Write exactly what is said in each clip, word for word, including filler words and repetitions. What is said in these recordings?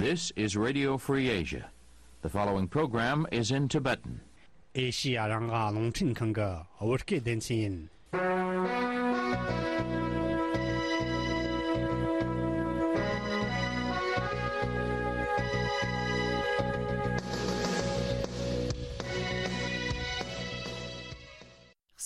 This is Radio Free Asia. The following program is in Tibetan. ཨེ་ཤི་ཡ་རང་དབང་རླུང་འཕྲིན་ཁང་གི་བོད་སྐད་སྡེ་ཚན་ཡིན།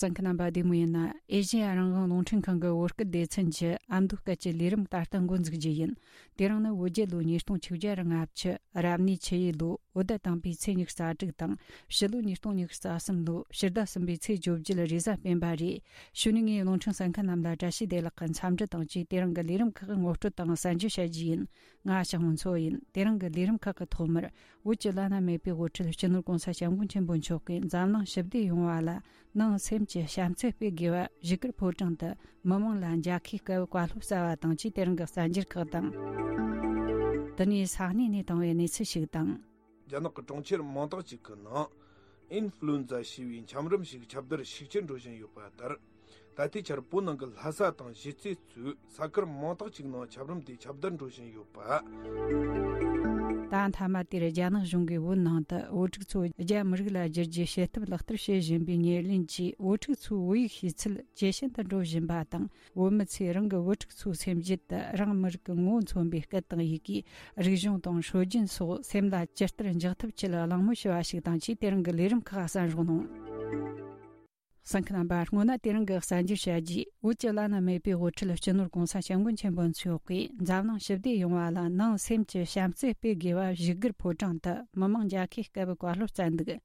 གསན་མཁན་རྣམ་པ་བདེ་མོ་ཡིན་ན། ཨེ་ཤེ་ཡ་རང་དབང་རླུང་འཕྲིན་ཁང་གི་བོད་སྐད་སྡེ་ཚན་གྱི་ཨ་མདོ་སྐད་ཀྱི་ལས་རིམ་ད་ལྟ་འགོ་འཛུགས་རྒྱུ་ཡིན། དེ་རིང་ནི་བོད་རྒྱལ་ལོ་ཉིས་སྟོང་ཆིག་བརྒྱ་རེ་ལྔ་བཅུ་རབ་གནས་ཆུ་ཡོས་ལོ་འོད་ཟླ་དང་པོའི་ཚེས་ཉི་ཤུ་རྩ་དྲུག་དང་། ཕྱི་ལོ་ཉིས་སྟོང་ཉི་ཤུ་རྩ་གསུམ་ལོ་ཕྱི་ཟླ་གསུམ་པའི་ཚེས་བཅོ་བརྒྱད་རེས་གཟའ་སྤེན་པ་རེད། གཞུག་ནས་ངས་རླུང་འཕྲིན་གསན་མཁན་རྣམས་ལ་བཀྲ་ཤིས་བདེ་ལེགས་ཀྱི་འཚམས་འདྲི་དང་བཅས། དེ་རིང་གི་ལས་རིམ་ཁག་ངོ་སྤྲོད་དང་གསན་རྒྱུ་བྱ་རྒྱུ་ཡིན། ང་ཞང་མོ་མཚོ་ཡིན། དེ་རིང་གི་ལས་རིམ་ཁག་གི་ཐོག་མར། བོད་ཀྱི་བླ་ན་མེད་པའི་དབུ་ཁྲིད་སྤྱི་ནོར་༸གོང་ས་༸སྐྱབས་མགོན་ཆེན་པོ་མཆོག་གིས་འཛམ་གླིང་ཞི་བདེ་ཡོང་བ་ལ་ནང་སེམས་ཀྱི་བྱམས་བརྩེ་སྤེལ་དགོས་པ་བཞུགས་སྒར་ཕོ་བྲང་དུ་མི་མང་ལ་མཇལ་ཁའི་སྐབས་བཀའ་སློབ་སྩལ་བ་དང་བཅས། དེ་རིང་གི་གསར་འགྱུར་ཁག་དང་། དེ་ནས་ས་གནས་ནས་བཏང་བའི་གནས་ཚུལ་ཞིག་དང་། རྒྱ་ནག་གི་གྲོང་ཁྱེར་མང་དག་ཅིག་གི་ནང་ཨིན་ཧྥུ་ལུ་ཨེན་ཛ་ཞེས་པའི་འཁྱམ་རུམ་ཞིག་ཁྱབ་གདལ་ཤུགས་ཆེར་འགྲོ་བཞིན་ཡོད་པ་ལྟར། ད་ལྟའི་ཆར་བོད་ནང་གི་ལྷ་ས་དང་གཞིས་རྩེ་གཙོས་ས་ཁུལ་མང་དག་ཅིག་ནང་འཁྱམ་རུམ་དེ་ཁྱབ་གདལ་འགྲོ་བཞིན་ཡོད་པ། ད་མཐའ་མ་དེར་རྒྱ་ནག་གཞུང་གིས་བོད་ནང་དུ་བོད་ཕྲུག་ཚོ་རྒྱ་མི་རིགས་ལ་བསྒྱུར་རྒྱུའི་བྱེད་ཐབས་ལག་བསྟར་བྱེད་བཞིན་པའི་ཉེར་ལེན་གྱིས། བོད་ཕྲུག་ཚོའི་བོད་ཡིག་ཤེས་ཚད་ཇེ་ཞན་དུ་འགྲོ་བཞིན་པ་དང་། བོད་མི་ཚོས་རང་གི་བོད་ཕྲུག་ཚོའི་སེམས་རྒྱུད་དུ་རང་མི་རིགས་ཀྱི་ངོ་བོ་མཚོན་པའི་སྐད་དང་ཡི་གེ། རིག་གཞུང་དང་སྲོལ་རྒྱུན་སོགས་སེམས་ལ་ཇི་ལྟར་འཇགས་ཐབས་ཆེད་གླེང་མོལ་ཞུ་བ་ཞིག་དང་བཅས། དེ་རིང་གི་ལས་རིམ་ཁག་གསན་རོགས་གནང་། གསན་མཁན་རྣམ་པ། སྔོན་ན་དེ་རིང་གི་གསར་འགྱུར་བྱ་རྒྱུས། བོད་ཀྱི་བླ་ན་མེད་པའི་དབུ་ཁྲིད་སྤྱི་ནོར་༸གོང་ས་༸སྐྱབས་མགོན་ཆེན་པོ་མཆོག་གིས་འཛམ་གླིང་ཞི་བདེ་ཡོང་བ་ལ་ནང་སེམས་ཀྱི་བྱམས་བརྩེ་སྤེལ་དགོས་པ་བཞུགས་སྒར་ཕོ་བྲང་དུ་མི་མང་མཇལ་ཁའི་སྐབས་བཀའ་སློབ་སྩལ་འདུག།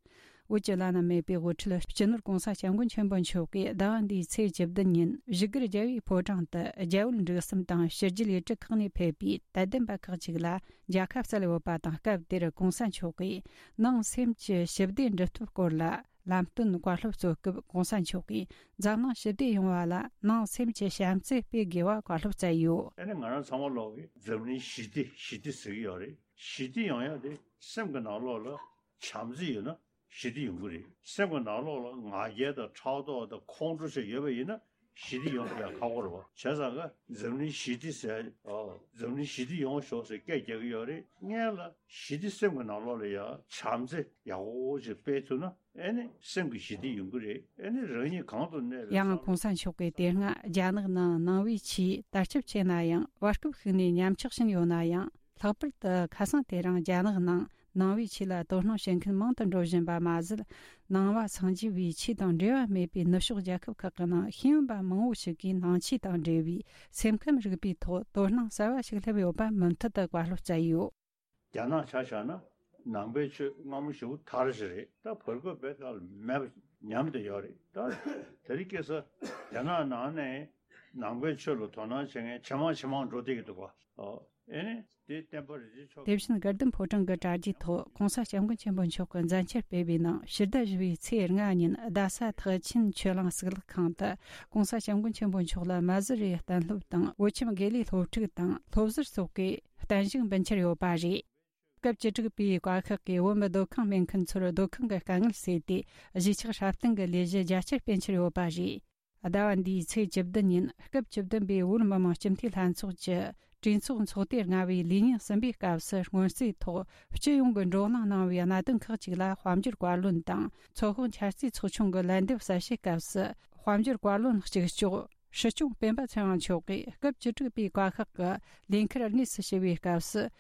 བོད་ཀྱི་བླ་ན་མེད་པའི་དབུ་ཁྲིད་སྤྱི་ནོར་༸གོང་ས་༸སྐྱབས་མགོན་ཆེན་པོ་མཆོག་གིས་ཟླ་བ་འདིའི་ཚེས་བཅུ་བདུན་ཉིན་བཞུགས་སྒར་རྒྱལ་བའི་ཕོ་བྲང་དུ་རྒྱ་བོད་འབྲེལ་ཟམ་དང་ཕྱི་རྒྱལ་ལས་བྲེལ་ཁག་ནས་ཕེབས་པའི་དད་ལྡན་པ་ཁག་ཅིག་ལ་མཇལ་ཁ་སྩལ་ཡོད་པ་དང་། སྐབས་དེར་༸གོང་ས་མཆོག་གིས་ནང་སེམས་ཀྱི་ཞི་བདེ་འགྲུབ་ཐབས་སྐོར་ལ། ལམ་སྟོན་བཀའ་སློབ་སྩོལ་སྐབས་༸གོང་ས་མཆོག་གིས་འཛམ་གླིང་ཞི་བདེ་ཡོང་བ་ལ་ནང་སེམས་ཀྱི་བྱམས་བརྩེ་སྤེལ་དགོས་པ་བཀའ་སློབ་སྩལ་ཡོད། ཨ་ནི་ང་རང་ཚང་མ་ལོག་གིས་འཛམ་གླིང་ཞི་བདེ་ཞི་བདེ་ཟེར་གྱི་ཡོད་རེད། ཞི་བདེ་ཡོང་ཡག་དེ་སེམས་ཀྱི་ནང་ལོགས་ལ་བྱམས་བརྩེ་ཡོད་ན་ཞི་བདེ་ཡོང་གི་རེད། སེམས་ཀྱི་ནང་ལོགས་ལ་ང་རྒྱལ་དང་ཕྲག་དོག་དང་ཁོང་ཁྲོ་བྱས་ཡོད་པ་ཡིན་ན་ཞི་བདེ་ཡོང་ཡག་ཁག་པོ་རེད་བ། བྱས་ཙང་ཀ་འཛམ་གླིང་ཞི་བདེ་ཟེར། ཨོ། འཛམ་གླིང་ཞི་བདེ་ཡོང་ཤོག་ཟེར་སྐད་རྒྱག་གི་ཡོད་རེད། སྔོན་ལ་ཞི་བདེ་སེམས་ཀྱི་ནང་ལོགས་ལ་ཡ་བྱམས་བརྩེ་ཡག་པོ་ཅིག་སྤེལ་ཐུབ་ན། ཨེ་ནི་སེམས་ཀྱི་ཞི་བདེ་ཡོང་གི་རེད། ཨེ་ནི་རང་ཉིད་གང་དུ་གནས་པའི་ཡང་༸གོང་ས་མཆོག་གིས་དེ་སྔ་རྒྱ་ནག་ནང་ནང་པའི་ཆོས་དར་ཁྱབ་ཆེ་ན་ཡང་། བར་སྐབས་ཤིག་ནས་ཉམས་ཆག་ཕྱིན་ཡོད་ན་ཡང་། ལྷག་པར་དུ་ཁ་སང་དེ་རིང་རྒྱ་ནག་ནང་ནང་པའི་ཆོས་ལ་དོ་སྣང་བྱེད་མཁན་མང་དུ་འགྲོ་བཞིན་པ་མ་ཟད། ནང་པ་སངས་རྒྱས་པའི་ཆོས་དང་འབྲེལ་བ་མེད་པའི་ནུབ་ཕྱོགས་རྒྱལ་ཁབ་ཁག་གི་ནང་ཤེས་ཡོན་པ་མང་བོ་ཞིག་གིས་ནང་ཆོས་དང་འབྲེལ་བའི་སེམས་ཁམས་རིག་པའི་ཐོག་དོ་སྣང་གསར་བ་ཞིག་སླེབས་ཡོད་པ་མུ་མཐུད་དུ་བཀའ་སློབ་སྩལ་ཡོད། རྒྱ་ནག་ཆ་བཞག་ན་ནང་པའི་ཆོས་སྔ་མོ་ཞེ་པོ་དར་ཞིག་རེད། ད་བར་སྐབས་བེད་ཀ་ལ་མེད་པ་ཉམས་བསྡད་ཡོད་རེད། ད་དེ་རིང་ཁ་སང་རྒྱ་ནག་ནང་ནས་ནང་པའི་ཆོས་ལ་དོ་སྣང་བྱེད་མཁན་ཇེ་མང་ཇེ་མང་འགྲོ་བསྡད་ཀྱི་འདུག་ག། ཨོ། ཨེ་ནི་དེ་བསྟན་པ་རིན་ཆེན་མཆོག་དེ་བཞིན་དགའ་ལྡན་ཕོ་བྲང་གི་གྲ་རྒྱའི་ཐོག་༸གོང་ས་༸སྐྱབས་མགོན་ཆེན་པོ་མཆོག་གི་མཛད་འཆར་སྤེལ་བའི་ནང་ཕྱི་ཟླ་བཞི་པའི་ཚེས་ལྔ་ཉིན་རྡ་ས་ཐེག་ཆེན་ཆོས་གླིང་གཙུག་ལག་ཁང་དུ་༸གོང་ས་༸སྐྱབས་མགོན་ཆེན་པོ་མཆོག་ལ་མ་ཟི་རི་གཏན་སློབ་དང་བོད་ཁྱིམ་དགེ་ལས་སློབ་ཕྲུག་དང་སློབ་ཟུར་སོགས་ཀྱིས་བརྟན་བཞུགས་འབུལ་འཆར་ཡོད་པ་རེད། སྐབས་བཅུ་དྲུག་པའི་བཀའ་ཤག་གིས་བོད་མི་སྡོད་ཁང་མེད་མཁན་ཚོར་སྡོད་ཁང་གི་དཀའ་ངལ་སེལ་ཏེ་གཞིས་ཆགས་སྲ་བརྟན་གྱི་ལས་གཞི་རྒྱ་ཆེར་སྤེལ་འཆར་ཡོད་པ་རེད། ཟླ་བ་འདིའི་ཚེས་བཅུ་བདུན་ཉིན་སྐབས་བཅུ་བདུན་པའི་བོད་མི་མང་སྤྱི་འཐུས་ལྷན་ཚོགས་ཀྱི་གྲོས་ཚོགས་ཚོགས་ཐེངས་ལྔ་པའི་ལས་ཉིན་གསུམ་པའི་སྐབས་སུ་སྔོན་རྩིས་ཐོག་སྤྱི་ཡོངས་ཀྱི་བགྲོ་གླེང་གནང་བའི་གནད་དོན་ཁག་ཅིག་ལ་དཔལ་འབྱོར་བཀའ་བློན་དང་ཚོགས་དཔོན་འཆར་རྩིས་ཚོགས་ཆུང་གི་ལན་འདེབས་གསལ་བཤད་སྐབས་སུ་དཔལ་འབྱོར་བཀའ་བློན་གཅིག་ལྕོགས་སྲིད་སྐྱོང་སྤེན་པ་ཚེ་དབང་མཆོག་གིས་སྐབས་བཅུ་དྲུག་པའི་བཀའ་ཤག་གི་ལས་འཁུར་དངོས་སུ་ཞུ་བའི་སྐབས་སུ།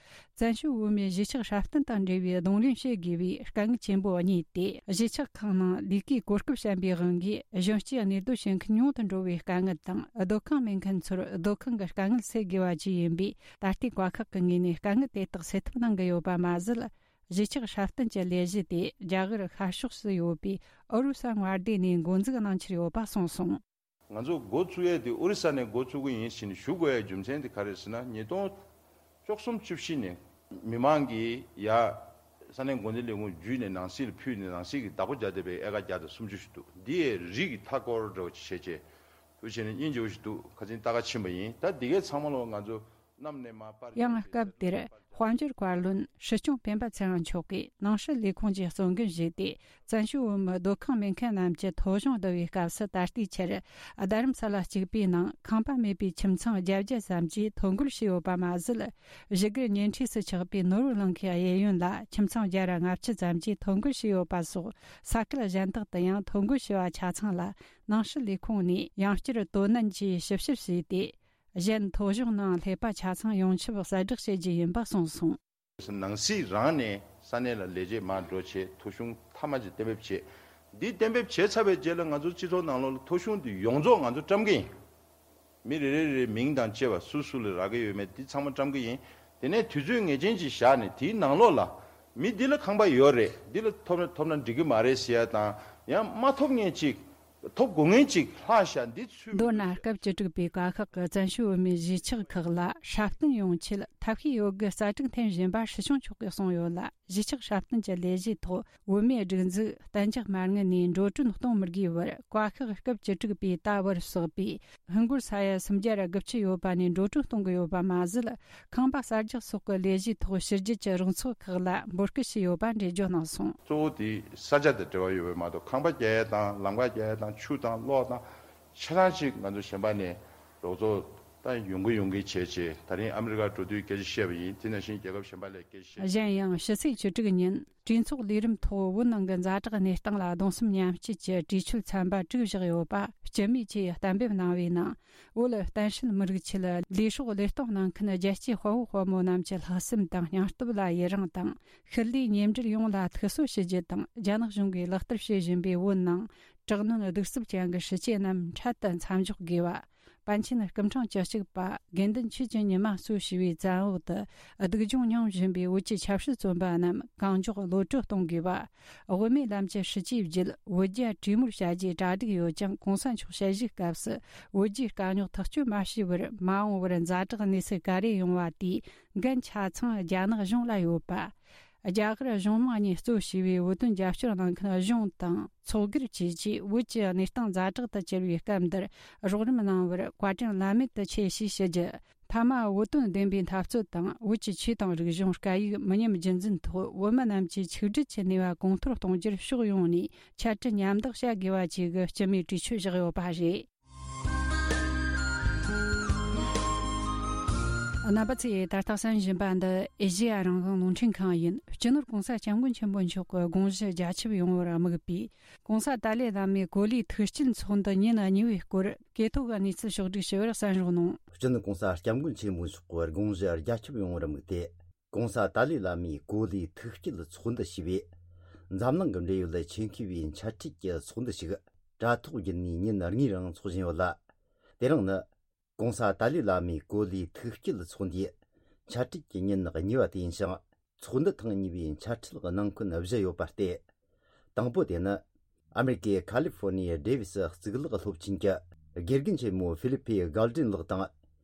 བཙན་བྱོལ་བོད་མིའི་གཞིས་ཆགས་སྲ་བརྟན་དང་འབྲེལ་བའི་གདོང་ལེན་བྱེད་དགོས་པའི་དཀའ་ངལ་ཆེན་པོ་གཉིས་ཏེ། གཞིས་ཆགས་ཁག་ནང་ལས་ཀའི་གོ་སྐབས་ཞན་པའི་དབང་གིས་གཞོན་སྐྱེས་གནས་སྡོད་བྱེད་མཁན་ཉུང་དུ་འགྲོ་བའི་དཀའ་ངལ་དང་། སྡོད་ཁང་མེད་མཁན་ཚོར་སྡོད་ཁང་གི་དཀའ་ངལ་སེལ་དགོས་པ་བཅས་ཡིན་པས། ད་ལྟའི་བཀའ་ཤག་གི་ངོས་ནས་དཀའ་ངལ་དེ་དག་སེལ་ཐབས་གནང་གི་ཡོད་པ་མ་ཟད། གཞིས་ཆགས་སྲ་བརྟན་གྱི་ལས་གཞི་དེ་རྒྱ་གར་ཤར་ཕྱོགས་སུ་ཡོད་པའི་ཨོ་རུ་ས་མངའ་སྡེ་ནས་འགོ་འཛུགས་གནང་འཆར་ཡོད་པ་གསུངས་སོང་། ང་ཚོ་འགོ་བཙུགས་ཡས་དེ་ཨོ་རི་ས་ནས་འགོ་བཙུགས་ཀྱི་ཡིན་ཞེས་ནས་ཞུ་དགོས་ཡའི་རྒྱུ་མཚན་དེ་ག་རེ་ཟེར་ན། ཉིས་སྟོང་བཅུ་གསུམ་བཅུ་བཞི་ནས་མི་མང་གིས་ཡ་ས་གནས་འགོ་འཛིན་ལས་ཁུངས་བརྒྱུད་ནས་ནང་སྲིད་ལ་ཕུལ་ནས་ནང་སྲིད་ཀྱི་བདག་པོ་རྒྱག་བསྡད་པའི་ཨེ་ཀར་བརྒྱ་དང་སུམ་ཅུ་ཞིག་འདུག། འདི་ཡའི་རི་གི་མཐའ་སྐོར་འདྲ་བོ་ཅིག་བྱས་རྗེས་དུ་བྱས་ནས་སྙིང་རྗེ་བོ་ཞིག་འདུག། ཁ་སང་ལྟ་ག་ཕྱིན་པ་ཡིན། ད་འདི་གའི་ཚང་མ་ལོ་ང་ཚོ་ ཡང་སྐབས་དེར་དཔལ་འབྱོར་བཀའ་བློན་སྲིད་སྐྱོང་སྤེན་པ་ཚེ་རིང་མཆོག་གིས་ནང་སྲིད་ལས་ཁུངས་ཀྱི་གཙོ་འགན་བཞེས་ཏེ། བཙན་བྱོལ་བོད་མི་སྡོད་ཁང་མེད་མཁན་རྣམས་ཀྱི་ཐོ་གཞུང་བསྡུ་བའི་སྐབས་སུ། ད་ལྟའི་ཆར་རྡ་རམ་ས་ལ་གཅིག་པུའི་ནང་ཁང་པ་མེད་པའི་ཁྱིམ་ཚང་བརྒྱད་བརྒྱ་ཙམ་གྱིས་ཐོ་འགོད་བྱས་ཡོད་པ་མ་ཟད། བཞུགས་སྒར་ཉེ་འཁྲིས་སུ་ཆགས་པའི་ནོར་བུ་གླིང་ཁའི་གཡས་གཡོན་ལ་ཁྱིམ་ཚང་བརྒྱ་ར་ལྔ་བཅུ་ཙམ་གྱིས་ཐོ་འགོད་བྱས་ཡོད་པ་སོགས། ས་ཁུལ་གཞན་དག་ཏུ་ཡང་ཐོ་འགོད་བྱས་པ་ཆ་ཚང་ལ་ནང་སྲིད་ལས་ཁུངས་ནས་ཡང་བསྐྱར་དོ་ནན་གྱིས་ཞིབ་བཤེར་བྱས་ཏེ། གཞན་ཐོ་གཞུང་ནང་སླེབས་པ་ཆ་ཚང་ཡོངས་ཁྱབ་གསལ་བསྒྲགས་བྱེད་རྒྱུ་ཡིན་པ་གསུངས་སོང་། ནང་སྲིད་རང་ནས་ས་གནས་ལ་ལས་བྱེད་མར་འགྲོ་བྱས། ཐོ་གཞུང་མཐའ་མ་ཅིག་གཏན་འབེབས་བྱས། འདི་གཏན་འབེབས་བྱས་ཚར་བའི་རྗེས་ལ་ང་ཚོ་སྤྱི་ཚོགས་ནང་ལོགས་ལ་ཐོ་གཞུང་འདི་ཡོངས་རྫོགས་ང་ཚོ་བཀྲམ་གི་ཡིན། མི་རེ་རེ་རེའི་མིང་དང་བཅས་པ་སུ་སུ་ལ་རག་གི་ཡོད་མེད་འདི་ཚང་མ་བཀྲམ་གི་ཡིན། དེ་ནས་དུས་ཚོད་ངེས་ཅན་ཅིག་བཞག་ནས་དེའི་ནང་ལོགས་ལ་མི་འདི་ལ་ཁང་པ་ཡོད་རེད། འདི་ལ་ཐོབ་ན་ཐོབ་ན་འགྲིག་གི་མ་རེད་ཟེར་ཡ་དང་། ཡང་མ་ཐོབ་མཁན་ཅིག་ཐོབ་དགོས་མཁན་ཅིག་ལྷག་ཤག་འདི་ཚུད། མདོར་ན་སྐབས་བཅུ་དྲུག་པའི་བཀའ་ཤག་གིས་བཙན་བྱོལ་བོད་མིའི་གཞིས་ཆགས་ཁག་ལ་སྲ་བརྟན་ཡོང་ཆེད་ཐབས་ཤེས་ཡོད་དགུའི་རྩ་དྲུག་འཐེན་བཞིན་པ་སྲིད་སྐྱོང་མཆོག་གིས་གསུངས་ཡོད་ལ། གཞིས་ཆགས་སྲ་བརྟན་གྱི་ལས་གཞིའི་ཐོག་བོད་མིའི་སྒྲིག་འཛུགས་གཏན་འཇགས་མ་དངུལ་ནས་འགྲོ་གྲོན་གཏོང་མི་དགོས་པར་བཀའ་ཤག་སྐབས་བཅུ་དྲུག་པའི་ད་བར་བསགས་པའི་ཧིན་སྒོར་ས་ཡ་སུམ་བརྒྱ་དགུ་བཅུ་ཡོད་པ་ནས་འགྲོ་གྲོན་གཏོང་གི་ཡོད་པ་མ་ཟད། ཁང་པ་གསར་རྒྱག་སོགས་ཀྱི་ལས་གཞིའི་ཐོག་ཕྱི་རྒྱལ་གྱི་རོགས་ཚོགས་ཁག་ལ་འབོད་སྐུལ་བྱས་ཡོད་པ་འགྲེལ་བརྗོད་གནང་སོང་། གཙོ་བོ་དེ་ས་ཆ་དང་འབྲེལ་བ་ཡོད་པ་མ་གཏོགས། ཁང་པ་རྒྱག་ཡ་དང་ལམ་ཁ་རྒྱག་ཡ་དང་ཆུ་དང་གློག་དང་ཆ་ཚང་ཅིག་ང་ཚོ་གཞན་པ་ནས་རོགས་ཚོགས་ད་ཡོང་གི་ཡོང་གི་བྱས་བྱས། ད་རིང་ཨ་མི་རི་ཀར་འགྲོ་དུས་སྐད་ཆ་བཤད་པ་ཡིན། དེ་ནང་བཞིན་རྒྱལ་ཁབ་གཞན་པ་ལ་སྐད་ཆ་བཤད། གཞན་ཡང་ཕྱི་ཚེས་བཅུ་དྲུག་ཉིན་གྲོས་ཚོགས་ལས་རིམ་ཐོག་བོད་ནང་གི་ཛ་དྲག་གནས་སྟངས་ལ་གདུང་སེམས་མཉམ་སྐྱེད་ཀྱི་གྲོས་ཆོད་ཚན་པ་དྲུག་བཞག་ཡོད་པ་སྤྱི་མོས་ཀྱིས་གཏན་འབེབས་གནང་བའི་ནང་། བོད་གཏན་སྲིད་མི་རིགས་ཆེད་ལས་སྲོག་བློས་གཏོང་གནང་མཁན་རྒྱལ་གཅེས་དཔའ་བོ་དཔའ་མོ་རྣམས་ཀྱི་ལྷག་བསམ་དང་སྙིང་སྟོབས་ལ་ཡི་རང་དང་། ཤུལ་ལུས་ཉེ་འབྲེལ་ཡོངས་ལ་ཐུགས་གསོ་ཞུ་རྒྱུ་དང་། རྒྱ་ནག་གཞུང་གིས་ལག་བསྟར་བྱེད་བཞིན་པའི་བོད་ནང་དྲག་གནོན་གདུག་རྩུབ་ཅན་གྱི་སྲིད་བྱུས་རྣམས་འཕྲལ་དུ་མཚམས་འཇོག་དགོས་པ། པཎ་ཆེན་སྐུ་ཕྲེང་བཅུ་གཅིག་པ་དགེ་འདུན་ཆོས་ཀྱི་ཉི་མ་གཙོ་བྱས་པའི་བཙན་འོག་ཏུ་སྡུག་སྦྱོང་མྱོང་བཞིན་པའི་བོད་ཀྱི་ཆབ་སྲིད་བཙོན་པ་རྣམས་གང་མགྱོགས་གློད་གྲོལ་གཏོང་དགོས་པ། དབུ་མའི་ལམ་གྱི་སྲིད་བྱུས་བརྒྱུད་བོད་རྒྱ་གྲོས་མོལ་བྱ་རྒྱུའི་གྲ་སྒྲིག་ཡོད་ཀྱང་། གོང་ས་མཆོག་དཔྱད་ཞིབ་སྐབས་སུ་བོད་རྒྱའི་དཀའ་རྙོག་ཐག་གཅོད་མ་བྱས་པར་མ་འོངས་པར་ཛ་དྲག་གནས་ཚུལ་ག་རེ་ཡོང་བ་དེའི་འགན་ཆ་ཚང་རྒྱ་ནག་གཞུང་ལ་ཡོད་པ། རྒྱ་གར་གཞུང་མང་གཉིས་གཙོ་བྱས་པའི་བོད་དོན་རྒྱབ་སྐྱོར་གནང་མཁན་གཞུང་དང་ཚོགས་སྒེར་བཅས་ཀྱིས་བོད་ཀྱི་གནས་སྟངས་ཛ་དྲག་ཏུ་གྱུར་བའི་སྐབས་འདིར་རོགས་རམ་གནང་བར་བཀའ་དྲིན་བླ་མེད་དུ་ཆེ་ཞེས་ཞུ་རྒྱུ། མཐའ་མ་བོད་དོན་བདེན་པའི་འཐབ་རྩོད་དང་། བོད་ཀྱི་ཆོས་དང་རིག་གཞུང་སྐད་ཡིག་མི་ཉམས་རྒྱུན་འཛིན་ཐོག་བོད་མི་རྣམས་ཀྱི་ཆིག་སྒྲིལ་གྱི་ནུས་པ་གོང་མཐོར་གཏོང་རྒྱུར་ཕྱོགས་ཡོངས་ནས་འཆད་ཁྲིད་མཉམ་འདེགས་བྱ་དགོས་པ་བཅས་ཀྱི་སྤྱི་མོས་གྲོས་ཆོད་བཞག་ཡོད་པ་རེད། རྣམ་པ་ཚོས་ད་ལྟ་གསན་བཞིན་པ་འདི་ཨེ་ཤེ་ཡ་རང་དབང་རླུང་འཕྲིན་ཁང་ཡིན། སྤྱི་ནོར་༸གོང་ས་༸སྐྱབས་མགོན་ཆེན་པོ་མཆོག་གི་དགོངས་གཞི་རྒྱ་ཁྱབ་ཡོང་བར་དམིགས་པའི་༸གོང་ས་ཏཱ་ལའི་བླ་མའི་གོ་ལའི་ཐུགས་བསྐྱེད་ཚོགས་འདུ་ཉིན་གཉིས་པའི་སྐོར་གོ་ཐོས་ཀྱི་གནས་ཚུལ་ཕྱོགས་བསྒྲིགས་ཞུ་བར་གསན་རོགས་གནང་། སྤྱི་ནོར་༸གོང་ས་༸སྐྱབས་མགོན་ཆེན་པོ་མཆོག་གི་དགོངས་གཞི་རྒྱ་ཁྱབ་ཡོང་བར་དམིགས་ཏེ། ༸གོང་ས་ཏཱ་ལའི་བླ་མའི་གོ་ལའི་ཐུགས་བསྐྱེད་ཚོགས་འདུ་ཞེས་པའི་འཛམ་གླིང་གི་འབྲེལ་ཡོད་ཆེད་མཁས་པའི་འཆད་ཁྲིད་ཀྱི་ཚོགས་འདུ་ཞིག་དྲ་ཐོག་བརྒྱུད་ནས་ཉིན་གཉིས་རིང་འཚོགས་བཞིན་ཡོད་ལ། དེ་རིང་ནི་༸གོང་ས་ཏཱ་ལའི་བླ་མའི་གོ་ལའི་ཐུགས་བསྐྱེད་ཚོགས་འདུའི་འཆད་ཁྲིད་ཀྱི་ཉིན་གཉིས་པ་དེ་ཡིན་ཞིང་། ཚོགས་འདུ་ཐེངས་གཉིས་པའི་འཆད་ཁྲིད་གནང་མཁན་བཞི་ཡོད་པ་སྟེ། དང་པོ་དེ་ནི་ཨ་མེ་རི་ཀའི་ཁ་ལི་ཧྥོ་ནི་ཡའི་ཌེ་ཝི་སི་གཙུག་ལག་སློབ་ཆེན་གྱི་དགེ་རྒན་ཆེན་མོ་ཧྥི་ལི་ཕི་གལ་ཏྲིན་ལགས་དང་།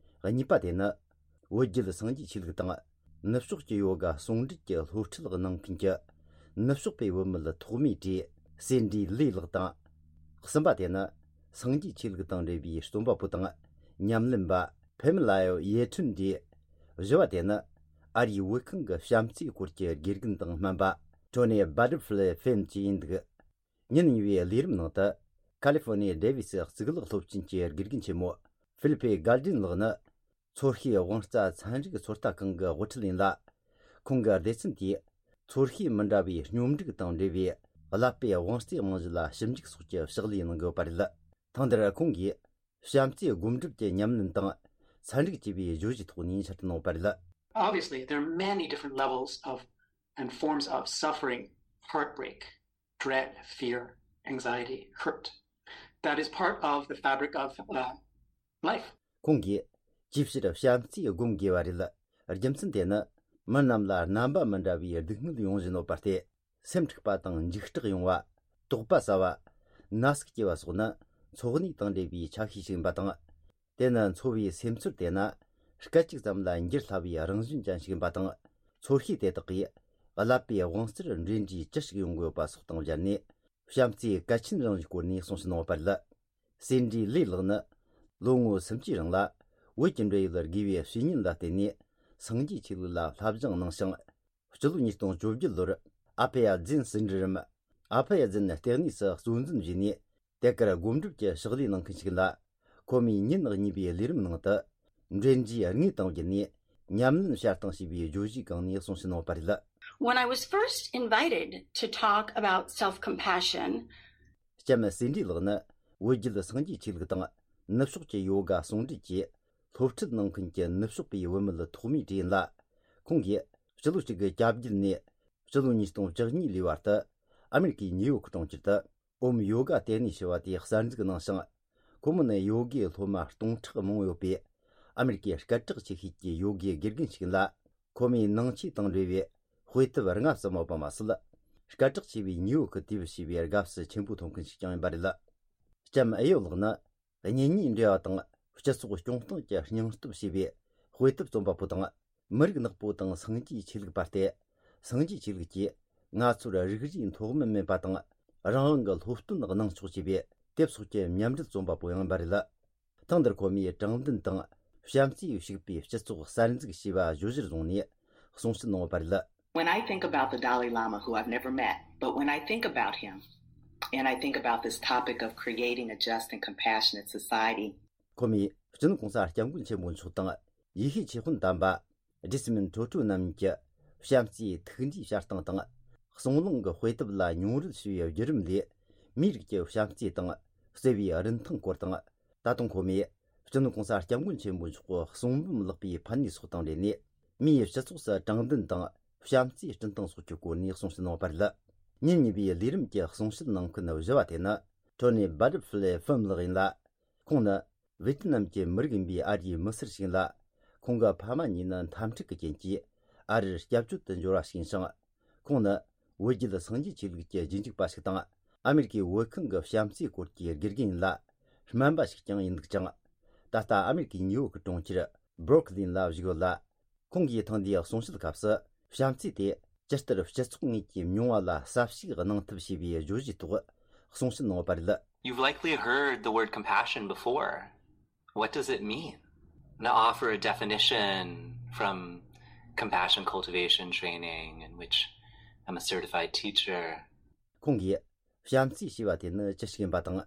གཉིས་པ་དེ་ནི་བོད་བརྒྱུད་སངས་རྒྱས་ཆོས་ལུགས་དང་ནུབ་ཕྱོགས་ཀྱི་ཡོ་ག་ཟུང་འབྲེལ་གྱི་སློབ་ཁྲིད་གནང་མཁན་གྱི་ནུབ་ཕྱོགས་པའི་བུད་མེད་ཐོག་མའི་གྲས་སེ་འདྲི་ལི་ལགས་དང་། གསུམ་པ་དེ་ནི་སངས་རྒྱས་ཆོས་ལུགས་དང་འབྲེལ་བའི་རྩོམ་པ་པོ་དང་ཉམས་ལེན་པ་ཕེ་མི་ལ་ཡོ་ཡེ་ཁྲུན་ཏེ། བཞི་བ་དེ་ནི་ཨ་རིའི་བོད་ཁང་གི་བྱམས་བརྩེའི་སྐོར་གྱི་དགེ་རྒན་དང་སྨན་པ་ཊོ་ནི་བྷ་ཏར་ཕི་ལེ་ཧྥིན་གྱིས་ཡིན་འདུག་ཉིན་གཉིས་པའི་ལས་རིམ་ནང་དུ་ཁ་ལི་ཧྥོ་ནི་ཡའི་ཌེ་ཝི་སི་གཙུག་ལག་སློབ་ཆེན་གྱི་དགེ་རྒན་ཆེན་མོ་ཧྥི་ལི་ཕེ་གལ་ཏྲིན་ལགས་ནི་ཚོར་ཤེས་དབང་རྩ་ཚན་རིག་ཚོད་ལྟ་ཁང་གི་དབུ་ཁྲིད་ཡིན་ལ། ཁོང་གི་སྡེ་ཚན་དེས་ཚོར་ཤེས་མི་འདྲ་བའི་སྙོམས་འགྲིག་དང་འབྲེལ་བའི་ཀླད་པའི་དབང་རྩའི་རྨང་གཞི་ལ་ཞིབ་འཇུག་སོགས་ཀྱི་ཕྱག་ལས་གནང་གི་ཡོད་པ་རེད། ཐེངས་འདིར་ཁོང་གིས་བྱམས་བརྩེའི་སྒོམ་སྒྲུབ་ཀྱི་ཉམས་ལེན་དང་ཚན་རིག་ཅེས་པའི་བརྗོད་གཞིའི་ཐོག་ནས་འཆད་ཁྲིད་གནང་བ་རེད། Obviously, there are many different levels of and forms of suffering, heartbreak, dread, fear, anxiety, hurt. That is part of the fabric of uh, life. ཁོང་གིས་ཅིའི་ཕྱིར་བྱམས་བརྩེ་སྒོམ་དགོས་པ་རེད། རྒྱུ་མཚན་དེ་ནི་མི་རྣམས་ལ་རྣམ་པ་མི་འདྲ་བའི་སྡུག་བསྔལ་ཡོང་བཞིན་ཡོད་པ་སྟེ། སེམས་འཁྲུགས་པ་དང་འཇིགས་སྐྲག་ཡོང་བ། དོགས་པ་ཟ་བ། ན་ཟུག་སྐྱེ་བ་སོགས་ནི་འཚོ་གནས་དང་འབྲེལ་བའི་ཆ་ཤས་ཤིག་ཡིན་པ་དང་། དེ་ནི་འཚོ་བའི་སེམས་ཚོར་དེ་ན་སྐད་ཅིག་ཙམ་ལ་འགྱུར་སླ་བའི་རང་བཞིན་ཅན་ཞིག་ཡིན་པ་དང་། ཚོར་ཤེས་དེ་དག་གིས་ཀླད་པའི་དབང་རྩར་འབྲེལ་འདྲིས་ཅི་ཞིག་ཡོང་གི་ཡོད་པ་སོགས་དང་སྦྱར་ནས། བྱམས་བརྩེའི་གལ་ཆེན་རང་བཞིན་སྐོར་ནས་གསུངས་ཕྱིན་གནང་བ་རེད། སེ་འདྲི་ལི་ལགས་ནི་ལོ་ངོ་སུམ་ཅུའི་རིང་ལ་ བོད་ཀྱི་འབྲེལ་ཡོད་དགེ་བའི་བཤེས་གཉེན་ལ་བརྟེན་ནས་སངས་རྒྱས་ཆོས་ལུགས་ལ་བསླབ་སྦྱོང་གནང་ཞིང་། སྤྱི་ལོ་ཉིས་སྟོང་བཅོ་བརྒྱད་ལོར་ཨ་ཕེ་ཡ་ཛིན་ཟིན་བྲིས་རམ། ཨ་ཕེ་ཡ་ཛིན་ལྟེ་གནས་སུ་གཙོ་འཛིན་བྱས་ནས། དེ་གར་སྒོམ་སྒྲུབ་ཀྱི་ཕྱག་ལས་གནང་མཁན་ཞིག་ལ། ཁོ་མོས་ཉིན་གཉིས་པའི་ལས་རིམ་ནང་དུ། འབྲེལ་འདྲིས་དངོས་དང་བརྒྱུད་ནས་ཉམས་ལེན་བྱ་སྟངས་ཞེས་པའི་བརྗོད་གཞིའི་སྒང་ནས་གསུང་བཤད་གནང་བ་རེད། When I was first invited to talk about self compassion, ལྕམ་སེ་འབྲི་ལགས་ནི་བོད་བརྒྱུད་སངས་རྒྱས་ཆོས་ལུགས་དང་ནུབ་ཕྱོགས་ཀྱི་ཡོ་ག་ཟུང་འབྲེལ་གྱིས་སློབ་ཁྲིད་གནང་མཁན་གྱི་ནུབ་ཕྱོགས་པའི་བུད་མེད་ཐོག་མའི་གྲས་ཡིན་ལ། ཁོང་གིས་སྤྱི་ལོ་གཅིག་དགུ་གྱ་བརྒྱད་ནས་སྤྱི་ལོ་ཉིས་སྟོང་བཅུ་གཉིས་ལོའི་བར་དུ་ཨ་མེ་རི་ཀའི་ཉིའུ་ཡོག་གྲོང་ཁྱེར་དུ་ཨོམ་ཡོ་ག་ལྟེ་གནས་ཞེས་པ་དེ་གསར་འཛུགས་གནང་ཞིང་། ཁོ་མོ་ནི་ཡོ་གའི་སློབ་མ་སྟོང་ཕྲག་མང་པོ་ཡོད་པའི་ཨ་མེ་རི་ཀའི་སྐད་གྲགས་ཆེ་ཤོས་ཀྱི་ཡོ་གའི་དགེ་རྒན་ཞིག་ཡིན་ལ། ཁོ་མོའི་ནང་ཆོས་དང་འབྲེལ་བའི་དཔེ་དེབ་ལྔ་ཙམ་ཡོད་པ་མ་ཟད། སྐད་གྲགས་ཆེ་བའི་ཉིའུ་ཡོག་གི་དུས་བབ་ཞེས་པའི་དགའ་བསུ་ཆེན་པོ་ཐོབ་མཁན་ཞིག་ཀྱང་ཡིན་པ་རེད། ལྕམ་ཨེ་ཡོ་ལགས་ནི། གཉེན་ཉེའི་འབྲེལ་བ་དང་སྤྱི་ཚོགས་སྐྱོང་སྟངས་ཀྱི་སྙིང་སྟོབས་ཞེས་པའི་དཔེ་དེབ་རྩོམ་པ་པོ་དང་། མི་རིགས་ནག་པོ་དང་སངས་རྒྱས་ཆོས་ལུགས་པ་སྟེ། སངས་རྒྱས་ཆོས་ལུགས་ཀྱིས་ང་ཚོར་རིགས་རུས་མཐོ་དམན་མེད་པ་དང་། རང་དབང་གི་སློབ་སྟོན་གནང་ཆོག་ཅེས་པའི་དེབ་སོགས་ཀྱི་མཉམ་འབྲེལ་རྩོམ་པ་པོ་ཡང་ཡིན་པ་རེད། ཐེངས་འདིར་ཁོ་མོས་དྲང་བདེན་དང་བྱམས་བརྩེས་ཕྱུག་པའི་སྤྱི་ཚོགས་གསར་འཛུགས་ཞེས་པ་བརྗོད་གཞིར་བཟུང་ནས་གསུང་བཤད་གནང་བ་རེད། When I think about the Dalai Lama, who I've never met, but when I think about him, and I think about this topic of creating a just and compassionate society, ཁོ་མོས་སྤྱི་ནོར་གོང་ས་སྐྱབས་མགོན་ཆེན་པོ་མཆོག་དང་ཡེ་ཤེས་ཆོས་དཔོན་དམ་པ་ཇི་སི་མིན་ཁྲོ་ཁྲོ་རྣམ་གཉིས་ཀྱི་བྱམས་བརྩེའི་ཐུགས་འདྲིས་བྱ་སྟངས་དང་། གསུང་གླེང་གི་དཔེ་དེབ་ལ་མྱོང་རོལ་ཞུ་བའི་བརྒྱུད་རིམ་ལས། མིའི་རིགས་ཀྱི་བྱམས་བརྩེ་དང་བརྩེ་བའི་རིན་ཐང་སྐོར་དང་། ད་དུང་ཁོ་མོས་སྤྱི་ནོར་གོང་ས་སྐྱབས་མགོན་ཆེན་པོ་མཆོག་གི་གསུང་འབུམ་ལེགས་པའི་ཕན་ནུས་སོགས་དང་འབྲེལ་ནས། མིའི་སྤྱི་ཚོགས་སུ་དྲང་བདེན་དང་བྱམས་བརྩེ་བསྐྲུན་སྟངས་སོགས་ཀྱི་སྐོར་ནས་གསུང་བཤད་གནང་བ་རེད། ཉིན་གཉིས་པའི་ལས་རིམ་གྱི་གསུང་བཤད་གནང་མཁན་བཞི་བ་དེ་ནི། ཊོ་ནི་བྷ་ཊར་ཕི་ལེ་ཧྥུམ་ལགས་ཡིན་ལ། ཁོང་ནི་ཝེ་ཏི་ནམ་གྱི་མི་རིགས་ཡིན་པའི་ཨ་རིའི་མི་སེར་ཞིག་ཡིན་ལ། ཁོང་གི་ཕ་མ་གཉིས་ནི་འཐབ་འཁྲུག་གི་རྐྱེན་གྱིས་ཨ་རིར་སྐྱབས་བཅོལ་དུ་འབྱོར་བ་ཞིག་ཡིན་ཞིང་། ཁོང་ནི་བོད་བརྒྱུད་སངས་རྒྱས་ཆོས་ལུགས་ཀྱི་རྗེས་འཇུག་པ་ཞིག་དང་། ཨ་མེ་རི་ཀའི་བོད་ཁང་གི་བྱམས་བརྩེའི་སྐོར་གྱི་དགེ་རྒན་ཡིན་ལ། སྨན་པ་ཞིག་ཀྱང་ཡིན་འདུག་ཅིང་། ད་ལྟ་ཨ་མེ་རི་ཀའི་ཉིའུ་ཡོག་གི་གྲོང་ཁྱེར་སྦྲུག་ལིན་ལ་བཞུགས་ཡོད་ལ། ཁོང་གིས་ཐེངས་འདིའི་གསུང་བཤད་སྐབས་སུ། བྱམས་བརྩེ་དེ་ཇི་ལྟར་སྤྱི་ཚོགས་དངོས་ཀྱི་མྱོང་བ་ལ་གསལ་བཤད་གནང་ཐབས་ཞེས་པའི་བརྗོད་གཞིའི་ཐོག་གསུང་བཤད་གནང་བ་རེད། You've likely heard the word compassion before. What does it mean? I'm going to offer a definition from compassion cultivation training, in which I'm a certified teacher. ཁོང་གིས། བྱམས་བརྩེ་ཞེས་པ་དེ་ནི་ཅི་ཞིག་ཡིན་པ་དང་།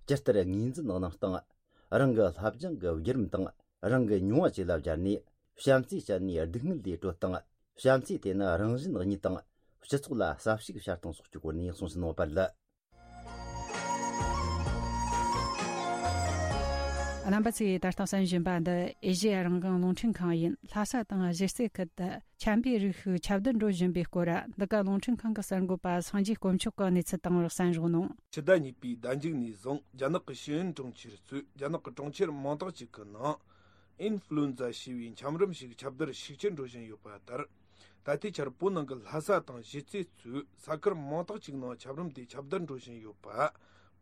ཇི་ལྟར་ངོས་འཛིན་གནང་སྟངས། རང་གི་བསླབ་སྦྱོང་གི་བརྒྱུད་རིམ་དང་། རང་གི་མྱོང་བ་བཅས་ལ་སྦྱར་ནས། བྱམས་བརྩེ་བྱས་ནས་སྡུག་བསྔལ་ལས་གྲོལ་སྟངས། བྱམས་བརྩེ་དེ་ནི་རང་གཞན་གཉིས་དང་། སྤྱི་ཚོགས་ལ་གསལ་བཤད་བྱ་སྟངས་སོགས་ཀྱི་སྐོར་ནས་གསུང་བཤད་གནང་བ་རེད། རྣམ་པ་ཚོས་ད་ལྟ་གསན་བཞིན་པ་འདི་ཨེ་ཤེ་ཡ་རང་དབང་རླུང་འཕྲིན་ཁང་ཡིན། ལྷ་ས་དང་གཞིས་རྩེ་ཁུལ་དུ་ཆམ་པའི་རིགས་ཤིག་ཁྱབ་གདལ་འགྲོ་བཞིན་པའི་སྐོར། འདི་ག་རླུང་འཕྲིན་ཁང་གི་གསར་འགོད་པ་སངས་རྒྱས་དཀོན་མཆོག་གིས་གནས་ཚུལ་བཏང་བར་གསན་རོགས་གནང་། ཕྱི་ཟླ་གཉིས་པའི་ཟླ་མཇུག་ནས་བཟུང་རྒྱ་ནག་གི་ཤེས་ཡོན་དྲུང་ཆེ་ཚོས་རྒྱ་ནག་གི་གྲོང་ཁྱེར་མང་དག་ཅིག་གི་ནང་ཨིན་ཧྥུ་ལུན་ཛ་ཞེས་པའི་ཆམ་རིམས་ཤིག་ཁྱབ་གདལ་ཤུགས་ཆེར་འགྲོ་བཞིན་ཡོད་པ་ལྟར། ད་ལྟའི་ཆར་བོད་ནང་གི་ལྷ་ས་དང་གཞིས་རྩེ་གཙོས་ས་ཁུལ་མང་དག་ཅིག་ནང་ཆམ་རིམས་དེ་ཁྱབ་གདལ་འགྲོ་བཞིན་ཡོད་པ།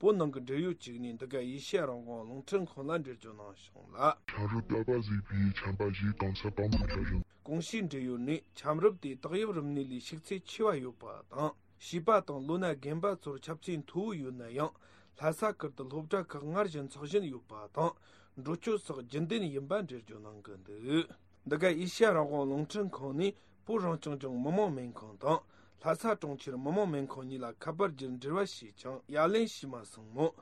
བོད་ནང་གི་འབྲེལ་ཡོད་ཅིག་ནས་འདི་ག་ཨེ་ཤེ་ཡ་རང་དབང་རླུང་འཕྲིན་ཁང་ལ་འགྲེལ་བརྗོད་གནང་བྱུང་ལ། ཆམ་རིམས་ཏ་པ་ཟེར་བའི་ཆམ་པ་ཞིག་གང་ས་གང་དུ་ཁྱབ་བཞིན། གོང་ཞུས་འབྲེལ་ཡོད་ནས་ཆམ་རིམས་དེ་བཏགས་དབྱིབས་རིམས་ནད་ལས་ཤུགས་ཚད་ཆེ་བ་ཡོད་པ་དང་། བྱིས་པ་དང་ལོ་ན་རྒན་པ་ཚོར་ཁྱབ་ཚད་མཐོ་བོ་ཡོད་ན་ཡང་། ལྷ་ས་ཁུལ་དུ་སློབ་གྲྭ་ཁག་སྔར་བཞིན་འཚོགས་བཞིན་ཡོད་པ་དང་། འགྲོ་སྐྱོད་སོགས་རྒྱུན་ལྡན་ཡིན་པ་འགྲེལ་བརྗོད་གནང་གི་འདུག། འདི་ག་ཨེ་ཤ་ཡ་རང་དབང་རླུང་འཕྲིན་ཁང་ནས་བོད་རང་སྐྱོང་ལྗོངས་མི་དམངས་སྨན་ཁང་དང་། ལྷ་ས་གྲོང་ཁྱེར་མི་དམངས་སྨན་ཁང་གཉིས་ལ་ཁ་པར་བརྒྱུད་འབྲེལ་བ་བྱས་ཀྱང་ཡ་ལན་བྱས་མ་སོང་མོད།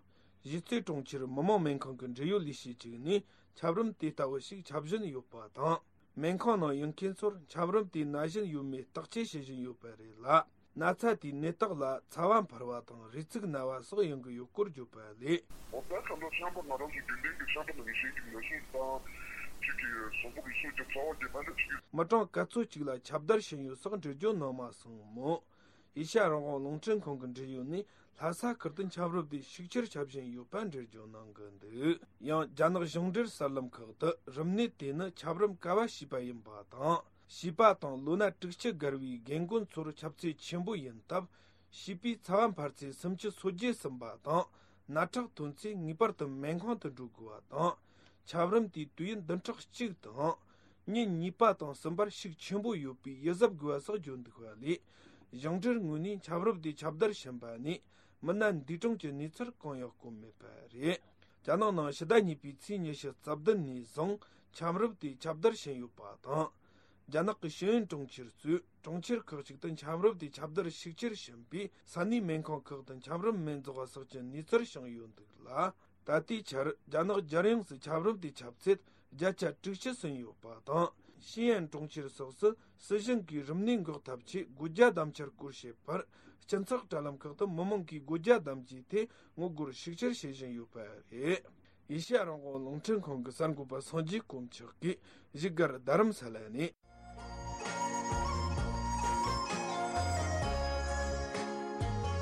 གཞིས་རྩེ་གྲོང་ཁྱེར་མི་དམངས་སྨན་ཁང་གི་འབྲེལ་ཡོད་ལས་བྱེད་ཅིག་ནས་ཆམ་རིམས་དེ་ལྟ་བུ་ཞིག་ཁྱབ་བཞིན་ཡོད་པ་དང་། སྨན་ཁང་ནང་ཡོད་མཁན་ཚོར་ཆམ་རིམས་དེ་ན་བཞིན་ཡོད་མེད་བརྟག་དཔྱད་བྱེད་བཞིན་ཡོད་པ་རེད་ལ། ན་ཚ་དེའི་ནད་རྟགས་ལ་ཚ་བ་འཕར་བ་དང་རུས་ཚིགས་ན་བ་སོགས་ཡོང་གི་ཡོད་སྐོར་བརྗོད་པ་ལས། འོ་ད་ཁ་ལོ་ཤམ་པ་ང་རང་ཚོ་རྒྱུན་ལྡན་གྱི་ཤམ་པ་ནང་གི་ཤེས་ཀྱི་ན་ཟུག་དང་། ཅིག་གི་གཟུགས་པོ་གི་སོ་ཀྱི་ཚ་བ་དེ་མ་འདྲ་ཅིག་ཡོད། མི་གྲངས་ག་ཚོད་ཅིག་ལ་ཁྱབ་བརྡལ་ཕྱིན་ཡོད་སོགས་འགྲེལ་བརྗོད་གནང་མ་སོང་མོད། ཨེ་ཤ་ཡ་རང་དབང་རླུང་འཕྲིན་ཁང་གི་འབྲེལ་ཡོད་ནས་ལྷ་ས་ཁུལ་དུ་ཆམ་རིམས་དེ་ཤུགས་ཆེར་ཁྱབ་བཞིན་ཡོད་པ་འགྲེལ་བརྗོད་གནང་གི་འདུག། ཡང་རྒྱ་ནག་ཞིང་འབྲེལ་གསར་ལམ་ཁག་ཏུ་རིམས་ནད་དེ་ནི་ཆམ་རིམས་ཀ་བ་བྱིས་པ་ཡིན་པ་དང་། བྱིས་པ་དང་ལོ་ན་དྲུག་ཅུ་བརྒལ་བའི་རྒན་རྒོན་ཚོར་ཁྱབ་ཚད་ཆེན་པོ་ཡིན་སྟབས། བྱིས་པའི་ཚ་བ་འཕར་ཚད་སུམ་ཅུ་སོ་བརྒྱད་ཟིན་པ་དང་། ནད་ཁྲག་ཐོན་ཚེ་ངེས་པར་དུ་སྨན་ཁང་དུ་འགྲོ་དགོས་པ་དང་། ཆམ་རིམས་དེའི་དུས་ཡུན་བདུན་ཕྲག་གཅིག་དང་། ཉིན་གཉིས་པ་དང་གསུམ་པར་ཤུགས་ཆེན་པོ་ཡོད་པའི་ཡིད་གཟབ་དགོས་པ་སོགས་བརྗོད་འདུག་པ་ལས། ཞིང་འབྲེལ་ངོས་ནས་ཆམ་རིམས་དེ་ཁྱབ་བརྡལ་ཕྱིན་པ་ནས་མི་སྣ་འདས་གྲོངས་ཀྱི་གནས་ཚུལ་གང་ཡང་བཀོད་མེད་པ་རེད། རྒྱ་ནག་ནང་ཕྱི་ཟླ་གཉིས་པའི་ཚེས་ཉི་ཤུ་རྩ་བདུན་ནས་བཟུང་ འཁྱམ་རུབ་དེ་ཁྱབ་བརྡལ་ཕྱིན་ཡོད་པ་དང་། རྒྱ་ནག་གི་ཤེས་ཡོན་གྲོང་ཁྱེར་གཙོས་གྲོང་ཁྱེར་ཁག་ཅིག་ཏུ་འཁྱམ་རུབ་དེ་ཁྱབ་བརྡལ་ཤུགས་ཆེར་ཕྱིན་པས། ས་གནས་སྨན་ཁང་ཁག་ཏུ་འཁྱམ་རུབ་སྨན་རྫོགས་ཟག་གི་གནས་ཚུལ་བྱུང་ཡོད་འདུག་ལ། ད་ལྟའི་ཆར་རྒྱ་ནག་རྒྱལ་ཡོངས་སུ་འཁྱམ་རུབ་དེ་ཁྱབ་ཚད་བརྒྱ་ཆ་དྲུག་ཅུ་ཟིན་ཡོད་པ་དང་། ཤེས་ཡོན་གྲོང་ཁྱེར་སོགས་སུ་སྲིད་གཞུང་གིས་རིམས་ནད་འགོག་ཐབས་ཆེད་སྒོ་རྒྱ་བསྡམ་འཆར་སྐོར་བཤད་པར། སྤྱི་ཚོགས་དྲ་ལམ་ཁག་ཏུ་མི་མང་གིས་སྒོ་རྒྱ་བསྡམ་རྒྱུའི་ཐད་ངོ་རྒོལ་ཤུགས་ཆེར་བྱེད་བཞིན་ཡོད་པ་རེད། ཨེ་ཤེ་ཡ་རང་དབང་རླུང་འཕྲིན་ཁང་གི་གསར་འགོད་པ་སངས་རྒྱས་དཀོན་མཆོག་གིས་བཞུགས་སྒར་རྡ་རམ་ས་ལ་ནས།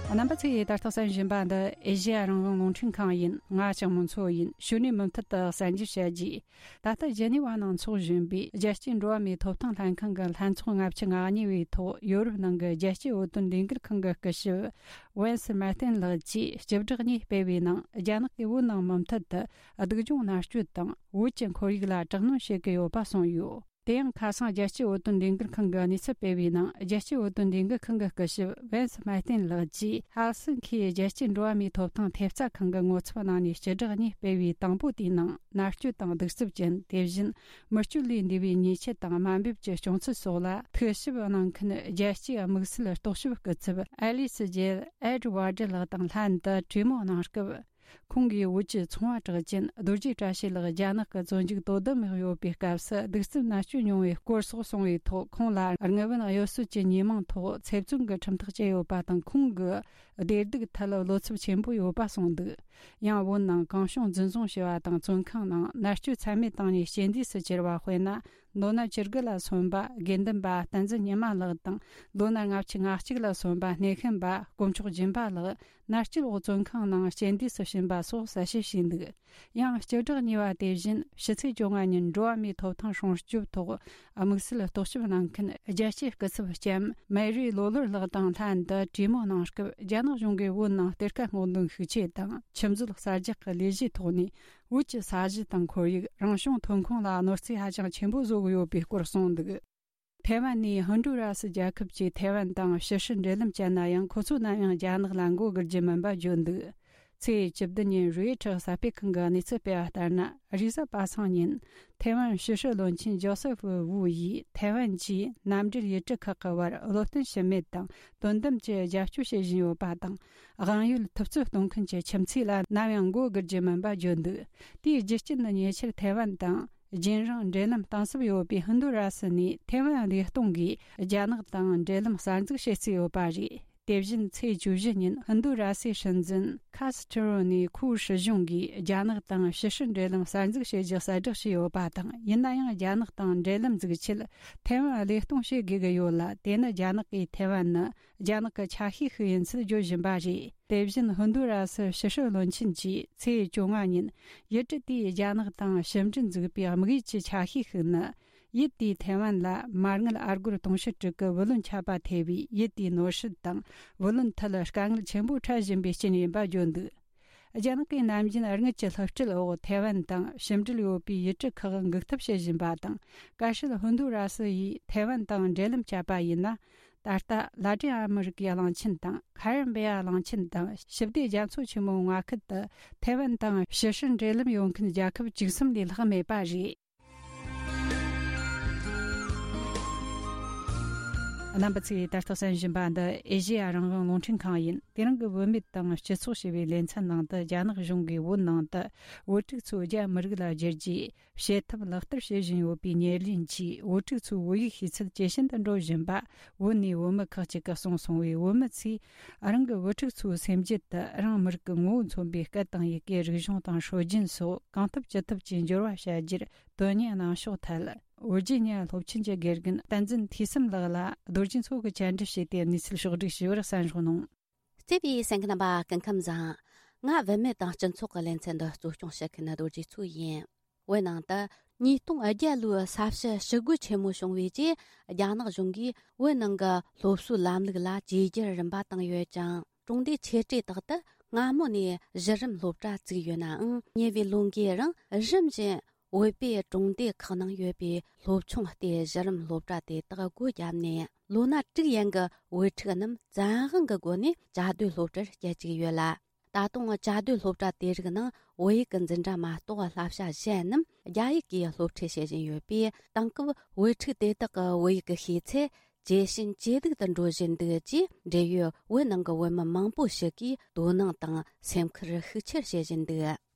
རྣམ་པ་ཚོས་ད་ལྟ་གསན་བཞིན་པ་འདི་ཨེ་ཤེ་ཡ་རང་དབང་རླུང་འཕྲིན་ཁང་ཡིན། ང་ལྕགས་མོ་མཚོ་ཡིན། གཞུག་ནས་མུ་མཐུད་དུ་གསན་རྒྱུ་བྱ་རྒྱུ། ད་ལྟ་ཇི་ནི་ཝ་ནང་འཚོགས་བཞིན་པའི་རྒྱལ་སྤྱིའི་འགྲོ་བ་མིའི་ཐོབ་ཐང་ལྷན་ཁང་གི་ལྷན་ཚོགས་ལྔ་བཅུ་ང་གཉིས་པའི་ཐོག་ཡོ་རོབ་ནང་གི་རྒྱལ་སྤྱིའི་བོད་དོན་ལས་འགུལ་ཁང་གི་སྐུ་ཞབས་ཝན་སི་མར་ཏིན་ལགས་ཀྱིས་སྤྱི་བསྒྲགས་གཉིས་སྤེལ་བའི་ནང་། རྒྱ་ནག་གིས་བོད་ནང་མུ་མཐུད་དུ་སྡུག་སྦྱོང་མནར་གཅོད་དང་། བོད་ཀྱི་ཁོར་ཡུག་ལ་དྲག་གནོན་བྱེད་ཀྱི་ཡོད་པ་གསུངས་ཡོད། དེ་ཡང་ཁ་སང་རྒྱལ་སྤྱིའི་བོད་དོན་ལས་འགུལ་ཁང་གིས་གནས་ཚུལ་སྤེལ་བའི་ནང་། རྒྱལ་སྤྱིའི་བོད་དོན་ལས་འགུལ་ཁང་གི་སྐུ་ཞབས་ཝན་སི་མར་ཏིན་ལགས་ཀྱིས་ཧེལ་སིན་ཁིའི་རྒྱལ་སྤྱིའི་འགྲོ་བ་མིའི་ཐོབ་ཐང་ཐེབས་རྩ་ཁང་གི་ངོ་ཚབ་གནང་ནས་སྤྱི་བསྒྲགས་གཉིས་སྤེལ་བའི་དང་པོ་དེའི་ནང་། མནར་གཅོད་དང་གདུག་རྩུབ་ཅན། དེ་བཞིན་མི་སྤྱོད་ལས་འདས་པའི་ཉེས་ཆད་དང་དམའ་འབེབས་ཀྱི་བྱུང་ཚུལ་སོགས་ལ་ཐུགས་ཞིབ་གནང་མཁན་རྒྱལ་སྤྱིའི་དམིགས་བསལ་རྟོག་ཞིབ་སྐུ་ཚབ་ཨེ་ལི་སི་ཇེལ་ཨེ་ཌི་ཝར་ཌི་ལགས་དང་ལྷན་དུ་གྲོས་མོལ་གནང་སྐབས། ཁོང་གིས་བོད་ཀྱི་ཚོང་བ་གྲགས་ཅན་རྡོ་རྗེ་བཀྲ་ཤིས་ལགས་རྒྱ་ནག་གི་བཙོན་འཇུག་དོ་དམ་འོག་ཡོད་པའི་སྐབས་སུ་གདུག་རྩུབ་མནར་གཅོད་མྱོང་བའི་སྐོར་སོགས་གསུངས་པའི་ཐོག། ཁོང་ལ་དངུལ་བུན་གཡོ་ཟོལ་གྱི་ཉེས་མིང་ཐོག་ཚེ་བཙོན་གྱི་ཁྲིམས་ཐག་བཅད་ཡོད་པ་དང་། ཁོང་གི་བདེ་སྡུག་ཐད་བློ་འཚབ་ཆེན་པོ་ཡོད་པ་གསུངས་འདུག། ཡང་བོད་ནང་གང་བྱུང་འཛིན་བཟུང་བྱས་པ་དང་། བཙོན་ཁང་ནང་མནར་གཅོད་ཚད་མེད་བཏང་ནས་རྐྱེན་འདས་སུ་གྱུར་བ་དཔེར་ན། ལོ་ན་བཅུ་དགུ་ལ་སོན་པ་དགེ་འདུན་པ་བསྟན་འཛིན་ཉི་མ་ལགས་དང་། ལོ་ན་ལྔ་བཅུ་ང་གཅིག་ལ་སོན་པ་སྣེ་ཤན་པ་དཀོན་མཆོག་སྦྱིན་པ་ལགས་མནར་གཅོད་འོག་བཙོན་ཁང་ནང་རྐྱེན་འདས་སུ་ཕྱིན་པ་སོགས་གསལ་བཤད་བྱས་འདུག། ཡང་སྤྱི་བསྒྲགས་གཉིས་པ་དེ་བཞིན་ཕྱི་ཚེས་བཅོ་ལྔ་ཉིན་འགྲོ་བ་མིའི་ཐོབ་ཐང་སྲུང་སྐྱོབ་ཐོག་དམིགས་བསལ་རྟོག་ཞིབ་གནང་མཁན་རྒྱལ་སྤྱིའི་སྐུ་ཚབ་ལྕམ་མེ་རི་ལོ་ལོར་ལགས་དང་ལྷན་དུ་གྲོས་མོལ་གནང་སྐབས། རྒྱ་ནག་གཞུང་གིས་བོད་ནང་གཏེར་ཁ་སྔོག་འདོན་ཤུགས་ཆེ་དང་། ཆུ་མཛོད་གསར་རྒྱག་གི་ལས་གཞིའི་ཐོག་ནས། བོད་ཀྱི་ས་གཞི་དང་ཁོར་ཡུག་རང་བྱུང་ཐོན་ཁུངས་ལ་གནོད་འཚེ་ཧ་ཅང་ཆེན་པོ་བཟོ་གི་ཡོད་པའི་སྐོར་གསུངས་འདུག། ཐའེ་ཝན་ནས་ཧུན་ཌུ་ར་སི་རྒྱལ་ཁབ་ཀྱིས་ཐའེ་ཝན་དང་ཕྱི་སྲིད་འབྲེལ་ལམ་བཅད་ན་ཡང་། ཁོ་ཚོ་ནམ་ཡང་རྒྱ་ནག་ལ་མགོ་སྒུར་རྒྱུ་མིན་པ་བརྗོད་འདུག། ཚེས་བཅུ་བདུན་ཉིན་རོའི་ཊར་གསར་སྤེལ་ཁང་གིས་གནས་ཚུལ་སྤེལ་བ་ལྟར་ན། རེས་གཟའ་པ་སངས་ཉིན་ཐའེ་ཝན་ཕྱི་སྲིད་བློན་ཆེན་ཇོ་སེ་ཧྥུ་ཝུ་ཡིས་ཐའེ་ཝན་གྱིས་མནའ་འབྲེལ་ཡུལ་གྲུ་ཁག་གི་བར་བློ་བརྟན་ཞུམ་མེད་དང་དོན་དམ་གྱི་རྒྱབ་སྐྱོར་བྱེད་བཞིན་ཡོད་པ་དང་། དབང་ཡོད་ཐུབ་ཚོད་གཏོང་མཁན་གྱི་ཁྱིམ་མཚེས་ལ་ནམ་ཡང་མགོ་སྒུར་རྒྱུ་མིན་པ་བརྗོད་འདུག། དེའི་རྒྱུ་རྐྱེན་ནི་ཉེ་ཆར་ཐའེ་ཝན་དང་རྒྱུན་རིང་འབྲེལ་ལམ་གཏིང་ཟབ་ཡོད་པའི་ཧུན་དུ་ར་སི་ནས་ཐའེ་ཝན་བདེ་སྟོང་གིས་རྒྱ་ནག་དང་འབྲེལ་ལམ་གསར་འཛུགས་བྱེད་རྩིས་ཡོད་པ་རེད། དེ་བཞིན་ཚེས་བཅུ་བཞི་ཉིན་ཧིན་རྡུ་ར་སིའི་སྲིད་འཛིན་ཁ་སི་ཐི་རོ་ནས་ཁོའི་སྲིད་གཞུང་གིས་རྒྱ་ནག་དང་ཕྱི་སྲིད་འབྲེལ་ལམ་གསར་འཛུགས་བྱེད་རྒྱུ་གསལ་བསྒྲགས་བྱས་ཡོད་པ་དང་། ཡིན་ན་ཡང་རྒྱ་ནག་དང་འབྲེལ་ལམ་འཛུགས་ཆེད་ཐའེ་ཝན་བློས་གཏོང་བྱེད་དགོས་ཀྱི་ཡོད་ལ། དེ་ནི་རྒྱ་ནག་གིས་ཐའེ་ཝན་ནི་རྒྱ་ནག་གི་ཆ་ཤས་ཤིག་ཡིན་ཚུལ་བརྗོད་བཞིན་པ་རེད། དེ་བཞིན་ཧིན་རྡུ་ར་སི་ཕྱི་སྲིད་བློན་ཆེན་གྱིས་ཚེས་བཅོ་ལྔ་ཉིན་ཡུལ་གྲུ་དེས་རྒྱ་ནག་དང་ཕྱི་འབྲེལ་འཛུགས་པའི་དམིགས་ཡུལ་གྱི་ཆ་ཤས་ཤིག་ནི། ཡུལ་དེས་ཐའེ་ཝན་ལ་མར་ངན་ཨར་སྒོར་དུང་ཕྱུར་དྲུག་གི་བུ་ལོན་ཆད་པ་ཐེབས་པས། ཡུལ་དེའི་ནོར་སྲིད་དང་བུ་ལོན་ཐད་དཀའ་ངལ་ཆེན་པོ་འཕྲད་བཞིན་པའི་རྐྱེན་ཡིན་པ་བརྗོད་འདུག། རྒྱ་ནག་གིས་ནམ་རྒྱུན་དངུལ་གྱི་བསླུ་བྲིད་འོག་ཐའེ་ཝན་དང་ཕྱི་འབྲེལ་ཡོད་པའི་ཡུལ་གྲུ་ཁག་འགུག་ཐབས་བྱེད་བཞིན་པ་དང་། གལ་སྲིད་ཧིན་རྡུ་ར་སི་ཡིས་ཐའེ་ཝན་དང་འབྲེལ་ལམ་བཅད་པ་ཡིན་ན། ད་ལྟ་ལ་ཏིན་ཨ་མི་རི་ཀའི་གླིང་ཆེན་དང་ཁ་རི་བྷི་ཡ་གླིང་ཆེན་དང་ཞི་བདེ་རྒྱ་མཚོ་ཆེན་མོའི་མངའ་ཁུལ་དུ་ཐའེ་ཝན་དང་ཕྱི་སྲིད་འབྲེལ་ལམ་ཡོད་མཁན་རྒྱལ་ཁབ་བཅུ་གསུམ་ལས་ལྷག་མེད་པ་རེད། རྣམ་པ་ཚོས་ད་ལྟ་གསན་བཞིན་པ་འདི་ཨེ་ཤེ་ཡ་རང་དབང་རླུང་འཕྲིན་ཁང་ཡིན། དེ་རིང་གི་བུད་མེད་དང་སྤྱི་ཚོགས་ཞེས་པའི་ལེ་ཚན་ནང་དུ། རྒྱ་ནག་གཞུང་གིས་བོད་ནང་དུ་བོད་ཕྲུག་ཚོ་རྒྱ་མི་རིགས་ལ་བསྒྱུར་རྒྱུའི་བྱེད་ཐབས་ལག་བསྟར་བྱེད་བཞིན་ཡོད་པའི་ཉེར་ལེན་གྱིས། བོད་ཕྲུག་ཚོའི་བོད་ཡིག་ཤེས་ཚད་ཇེ་ཞན་དུ་འགྲོ་བཞིན་པ་བོད་ནས་བུད་མེད་ཁག་ཅིག་གིས་གསུངས་སོང་བས། བུད་མེད་ཚོས་རང་གི་བུ་ཕྲུག་ཚོའི་སེམས་རྒྱུད་དུ་རང་མི་རིགས་ཀྱི་ངོ་བོ་མཚོན་པའི་སྐད་དང་ཡི་གེ། རིག་གཞུང་དང་སྲོལ་རྒྱུན་སོགས་གང་ཐུབ་ཅི་ཐུབ་ཀྱིས་འབྱོར་བ་བྱ་རྒྱུར་དོན་གཉེར་གནང་ཕྱོགས་ཐད། ཝི་ཇི་ནི་ཡ་སློབ་ཆེན་གྱི་དགེ་རྒན་བསྟན་འཛིན་འཐུས་བསམ་ལགས་ལ་རྡོ་རྗེ་མཚོ་གིས་བཅར་འདྲི་བྱས་ཏེ་གནས་ཚུལ་ཕྱོགས་བསྒྲིགས་ཞུས་པར་གསན་རོགས་གནང་། བརྩེ་བའི་གསན་མཁན་རྣམ་པ། སྐུ་ཁམས་བཟང་། ང་བུད་མེད་དང་སྤྱི་ཚོགས་ཀྱི་ལེ་ཚན་འདི་གཙོ་སྐྱོང་བྱེད་མཁན་རྡོ་རྗེ་མཚོ་ཡིན། བོད་ནང་དུ་ཉིས་སྟོང་བརྒྱད་ལོའི་ས་བྱི་ཞི་རྒོལ་ཆེན་མོ་བྱུང་བའི་རྗེས། རྒྱ་ནག་གཞུང་གིས་བོད་ནང་གི་སློབ་གསོའི་ལམ་ལུགས་ལ་བཅོས་བསྒྱུར་རིམ་པ་བཏང་ཡོད་ཅིང་། གྲོང་སྡེ་ཆེ་གྲས་དག་ཏུ་སྔ་མོ་ནས་གཞི་རིམ་སློབ་གྲྭ་བཙུགས་ཡོད་ནའང་། ཉེ་བའི་ལོ་འགའི་རིང་རིམ་བཞིན་བོད་པའི་གྲོང་སྡེ་ཁག་ནང་ཡོད་པའི་སློབ་ཆུང་སྟེ་གཞི་རིམ་སློབ་གྲྭ་དེ་དག་སྒོ་བརྒྱབ་ནས། ལོ་ན་དྲུག་ཡན་གྱི་བུ་ཕྲུག་རྣམས་བཙན་དབང་གི་སྒོ་ནས་བཅའ་སྡོད་སློབ་གྲྭར་བསྐྱལ་བཅུག་ཡོད་ལ། ད་དུང་བཅའ་སྡོད་སློབ་གྲྭ་དེ་རིགས་ནང་བོད་ཡིག་གི་འཛིན་གྲྭ་མ་གཏོགས་བསླབ་བྱ་གཞན་རྣམས་ རྒྱ་ཡིག་གིས་སློབ་ཁྲིད་བྱེད་བཞིན་ཡོད་པས། དེང་སྐབས་བོད་ཕྲུག་དེ་དག་གི་བོད་ཡིག་གི་ཤེས་ཚད་ཇེ་ཞན་ཇེ་སྡུག་ཏུ་འགྲོ་བཞིན་འདུག་ཅེས། འབྲེལ་ཡོད་བོད་ནང་གི་བོད་མི་མང་པོ་ཞིག་གིས་དོ་སྣང་དང་སེམས་ཁུར་ཤུགས་ཆེར་བྱེད་བཞིན་འདུག་